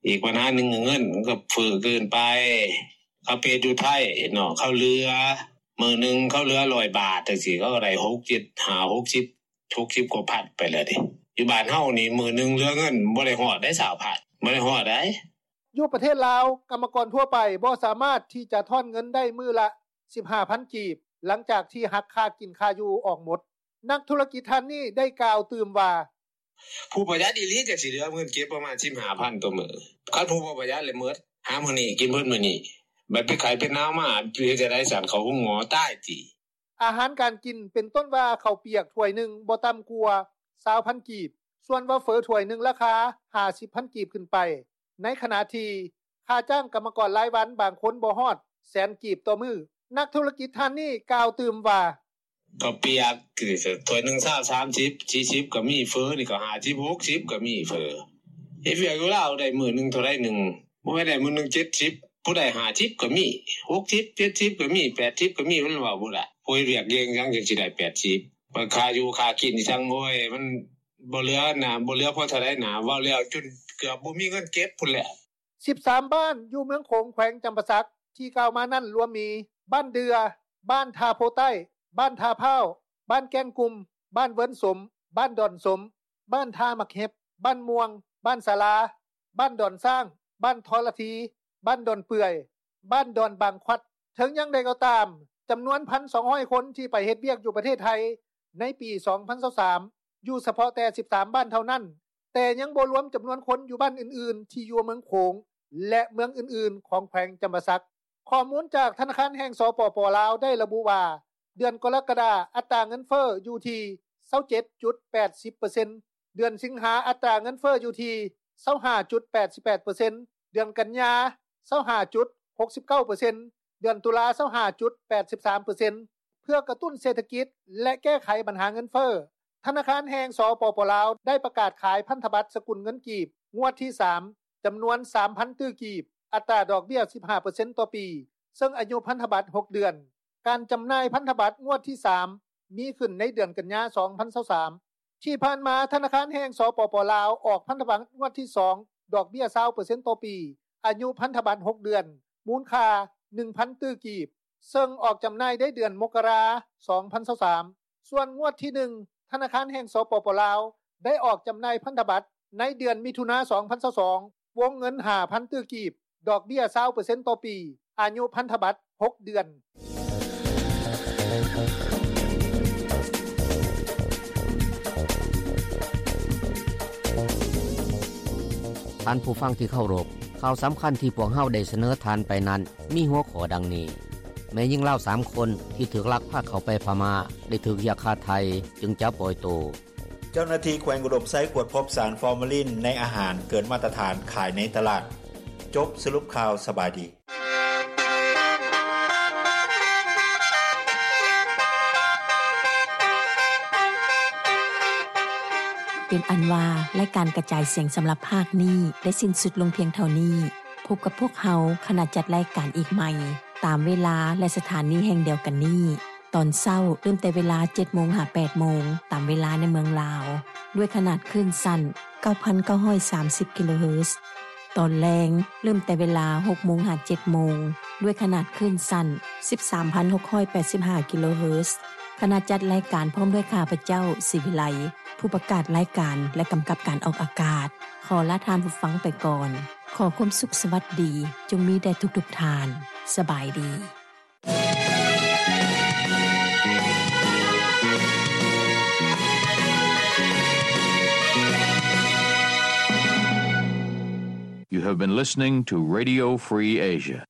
ອີກບັນຫາໜຶ່ງ ເງິນມັນກໍເຟີ້ເກີນໄປ. ເຂົາໄປເຮັດຢູ່ໄທເນາະ ເຂົາເຫຼືອ ມື້ໜຶ່ງເຂົາເຫຼືອຮ້ອຍບາດ ຈັ່ງຊີ້ ເຂົາກໍໄດ້ຫົກສິບ ເຈັດສິບ ຫ້າ ຫົກສິບ ຫົກສິບກວ່າພັນໄປແລ້ວເດ້. ຢູ່ບ້ານເຮົານີ້ມື້ໜຶ່ງເຫຼືອເງິນບໍ່ໄດ້ຮອດໄດ້ຊາວພັນ ບໍ່ໄດ້ຮອດໃດ. ຢູ່ປະເທດລາວ ກຳມະກອນທົ່ວໄປບໍ່ສາມາດທີ່ຈະທ້ອນເງິນໄດ້ມື້ລະສິບຫ້າພັນກີບ ຫຼັງຈາກທີ່ຫັກຄ່າກິນຄ່າຢູ່ອອກໝົດ. ນັກທຸລະກິດທ່ານນີ້ໄດ້ກ່າວຕື່ມວ່າ: ຜູ້ປະຢັດອີ່ຫຼີຈັ່ງຊິເຫຼືອເງິນເກັບປະມານສິບຫ້າພັນຕໍ່ມື້. ຄັນຜູ້ບໍ່ປະຢັດແລ້ວໝົດ ຫາມື້ນີ້ກິນເບິດມື້ນີ້ ບັດເປັນໄຂ້ເປັນໜາວມາ ເຮັດຈັ່ງໃດຊັ້ນ ເຂົ້າໂຮງໝໍຕາຍຕິ. ອາຫານການກິນ ເປັນຕົ້ນວ່າເຂົ້າປຽກຖ້ວຍໜຶ່ງບໍ່ຕ່ຳກວ່າຊາວພັນກີບ, ສ່ວນວ່າເຝີຖ້ວຍໜຶ່ງລາຄາຫ້າສິບພັນກີບຂຶ້ນໄປ, ໃນຂະນະທີ່ຄ່າຈ້າງກຳມະກອນລາຍວັນບາງຄົນບໍ່ຮອດແສນກີບຕໍ່ມື້. ນັກທຸລະກິດທ່ານນີ້ກ່າວຕື່ມວ່າ: ເຂົ້າປຽກ ຖ້ວຍໜຶ່ງຊາວ ສາມສິບ ສີ່ສິບກໍມີ, ເຝີນີ້ກໍຫ້າສິບ ຫົກສິບກໍມີ. ເຝີເຮັດວຽກຢູ່ລາວໄດ້ມື້ໜຶ່ງເທົ່າໃດໜຶ່ງ ບໍ່ແມ່ນໄດ້ມື້ໜຶ່ງເຈັດສິບ ຜູ້ໃດຫ້າສິບກໍມີ ຫົກສິບ ເຈັດສິບກໍມີ ແປດສິບກໍມີ ມັນເວົ້າບໍ່ໄດ້. ຜູ້ເຮັດວຽກເກັ່ງຫຍັງຈັ່ງຊິໄດ້ແປດສິບ ມັນຄ່າຢູ່ຄ່າກິນອີ່ຫຍັງ ໂອ້ຍ ມັນບໍ່ເຫຼືອນະ ບໍ່ເຫຼືອພໍເທົ່າໃດນະ. ເວົ້າແລ້ວຈົນເກືອບບໍ່ມີເງິນເກັບພຸ້ນແຫຼະ. ສິບສາມບ້ານຢູ່ເມືອງໂຂງ ແຂວງຈຳປາສັກ ທີ່ກ່າວມານັ້ນລວມມີ ບ້ານເດື່ອ, ບ້ານທ່າໂພໃຕ້, ບ້ານທ່າພ້າວ, ບ້ານແກ້ງກຸ່ມ, ບ້ານເວີນສົມ, ບ້ານດອນສົມ, ບ້ານທ່າໝາກເຫັບ, ບ້ານມ່ວງ, ບ້ານສາລາ, ບ້ານດອນຊ້າງ, ບ້ານທໍລະທີ, ບ້ານດອນເປື່ອຍ, ບ້ານດອນບາງຄວັດ. ເຖິງຢ່າງໃດກໍຕາມ, ຈຳນວນໜຶ່ງພັນສອງຮ້ອຍຄົນທີ່ໄປເຮັດວຽກຢູ່ປະເທດໄທໃນປີສອງພັນຊາວສາມ ຢູ່ສະເພາະແຕ່ສິບສາມບ້ານເທົ່ານັ້ນ, ແຕ່ຍັງບໍ່ລວມຈຳນວນຄົນຢູ່ບ້ານອື່ນໆທີ່ຢູ່ເມືອງໂຂງ ແລະ ເມືອງອື່ນໆຂອງແຂວງຈຳປາສັກ. ຂໍ້ມູນຈາກທະນາຄານແຫ່ງ ສປປ ລາວ ໄດ້ລະບຸວ່າ ເດືອນກໍລະກະດາ ອັດຕາເງິນເຟີ້ຢູ່ທີ່ຊາວເຈັດຈຸດແປດສິບເປີເຊັນ, ເດືອນສິງຫາ ອັດຕາເງິນເຟີ້ຢູ່ທີ່ຊາວຫ້າຈຸດແປດສິບແປດເປີເຊັນ, ເດືອນກັນຍາ ຊາວຫ້າຈຸດຫົກສິບເກົ້າເປີເຊັນ, ເດືອນຕຸລາ ຊາວຫ້າຈຸດແປດສິບສາມເປີເຊັນ. ເພື່ອກະຕຸ້ນເສດຖະກິດ ແລະ ແກ້ໄຂບັນຫາເງິນເຟີ້, ທະນາຄານແຫ່ງ ສປປ ລາວ ໄດ້ປະກາດຂາຍພັນທະບັດສະກຸນເງິນກີບງວດທີສາມ ຈຳນວນສາມພັນຕື້ກີບ, ອັດຕາດອກເບ້ຍສິບຫ້າເປີເຊັນຕໍ່ປີ, ເຊິ່ງອາຍຸພັນທະບັດຫົກເດືອນ. ການຈຳໜ່າຍພັນທະບັດງວດທີສາມ ມີຂຶ້ນໃນເດືອນກັນຍາ ສອງພັນຊາວສາມ. ທີ່ຜ່ານມາ ທະນາຄານແຫ່ງ ສປປ ລາວ ອອກພັນທະບັດງວດທີສອງ ດອກເບ້ຍຊາວເປີເຊັນຕໍ່ປີ, ອາຍຸພັນທະບັດຫົກເດືອນ, ມູນຄ່າໜຶ່ງພັນຕື້ກີບ, ເຊິ່ງອອກຈຳໜ່າຍໃນເດືອນມົກກະລາ ສອງພັນຊາວສາມ. ສ່ວນງວດທີໜຶ່ງ ທະນາຄານແຫ່ງ ສປປ ລາວ ໄດ້ອອກຈຳໜ່າຍພັນທະບັດໃນເດືອນມິຖຸນາ ສອງພັນຊາວສອງ ວົງເງິນຫ້າພັນຕື້ກີບ, ດອກເບ້ຍຊາວເປີເຊັນຕໍ່ປີ, ອາຍຸພັນທະບັດຫົກເດືອນ. ທ່ານຜູ້ຟັງທີ່ເຄົາລົບ, ຂ່າວສຳຄັນທີ່ພວກເຮົາໄດ້ສະເໜີທ່ານໄປນັ້ນ ມີຫົວຂໍ້ດັ່ງນີ້: ແມ່ຍິງລາວສາມຄົນທີ່ຖືກລັກພາເຂົ້າໄປພະມ້າ ໄດ້ຖືກຮຽກຄ່າໄຖ່ຈຶ່ງຈະປ່ອຍໂຕ. ເຈົ້າໜ້າທີ່ແຂວງອຸດົມໄຊກວດພົບສານຟໍມາລິນໃນອາຫານເກີນມາດຕະຖານຂາຍໃນຕະຫຼາດ. ຈົບສະຫຼຸບຂ່າວ. ສະບາຍດີ. ເປັນອັນວ່າ ລາຍການກະຈາຍສຽງສຳລັບພາກນີ້ໄດ້ສິ້ນສຸດລົງພຽງເທົ່ານີ້. ພົບກັບພວກເຮົາ ຄະນະຈັດລາຍການອີກໃໝ່ ຕາມເວລາ ແລະ ສະຖານີແຫ່ງດຽວກັນນີ້. ຕອນເຊົ້າເລີ່ມແຕ່ເວລາເຈັດໂມງຫາແປດໂມງ ຕາມເວລາໃນເມືອງລາວ ດ້ວຍຂະໜາດຄື້ນສັ້ນເກົ້າພັນເກົ້າຮ້ອຍສາມສິບກິໂລເຮີດ. ຕອນແລງເລີ່ມແຕ່ເວລາຫົກໂມງຫາເຈັດໂມງ ດ້ວຍຂະໜາດຄື້ນສັ້ນສິບສາມພັນຫົກຮ້ອຍແປດສິບຫ້າກິໂລເຮີດ. ຄະນະຈັດລາຍການພ້ອມດ້ວຍຂ້າພະເຈົ້າ ສີວິໄລ ຜູ້ປະກາດລາຍການ ແລະ ກຳກັບການອອກອາກາດ ຂໍລາທ່ານຜູ້ຟັງໄປກ່ອນ. ຂໍຄວາມສຸກສະຫວັດດີຈົ່ງມີແດ່ທຸກໆທ່ານ. ສະບາຍດີ. ເ You have been listening to Radio Free Asia.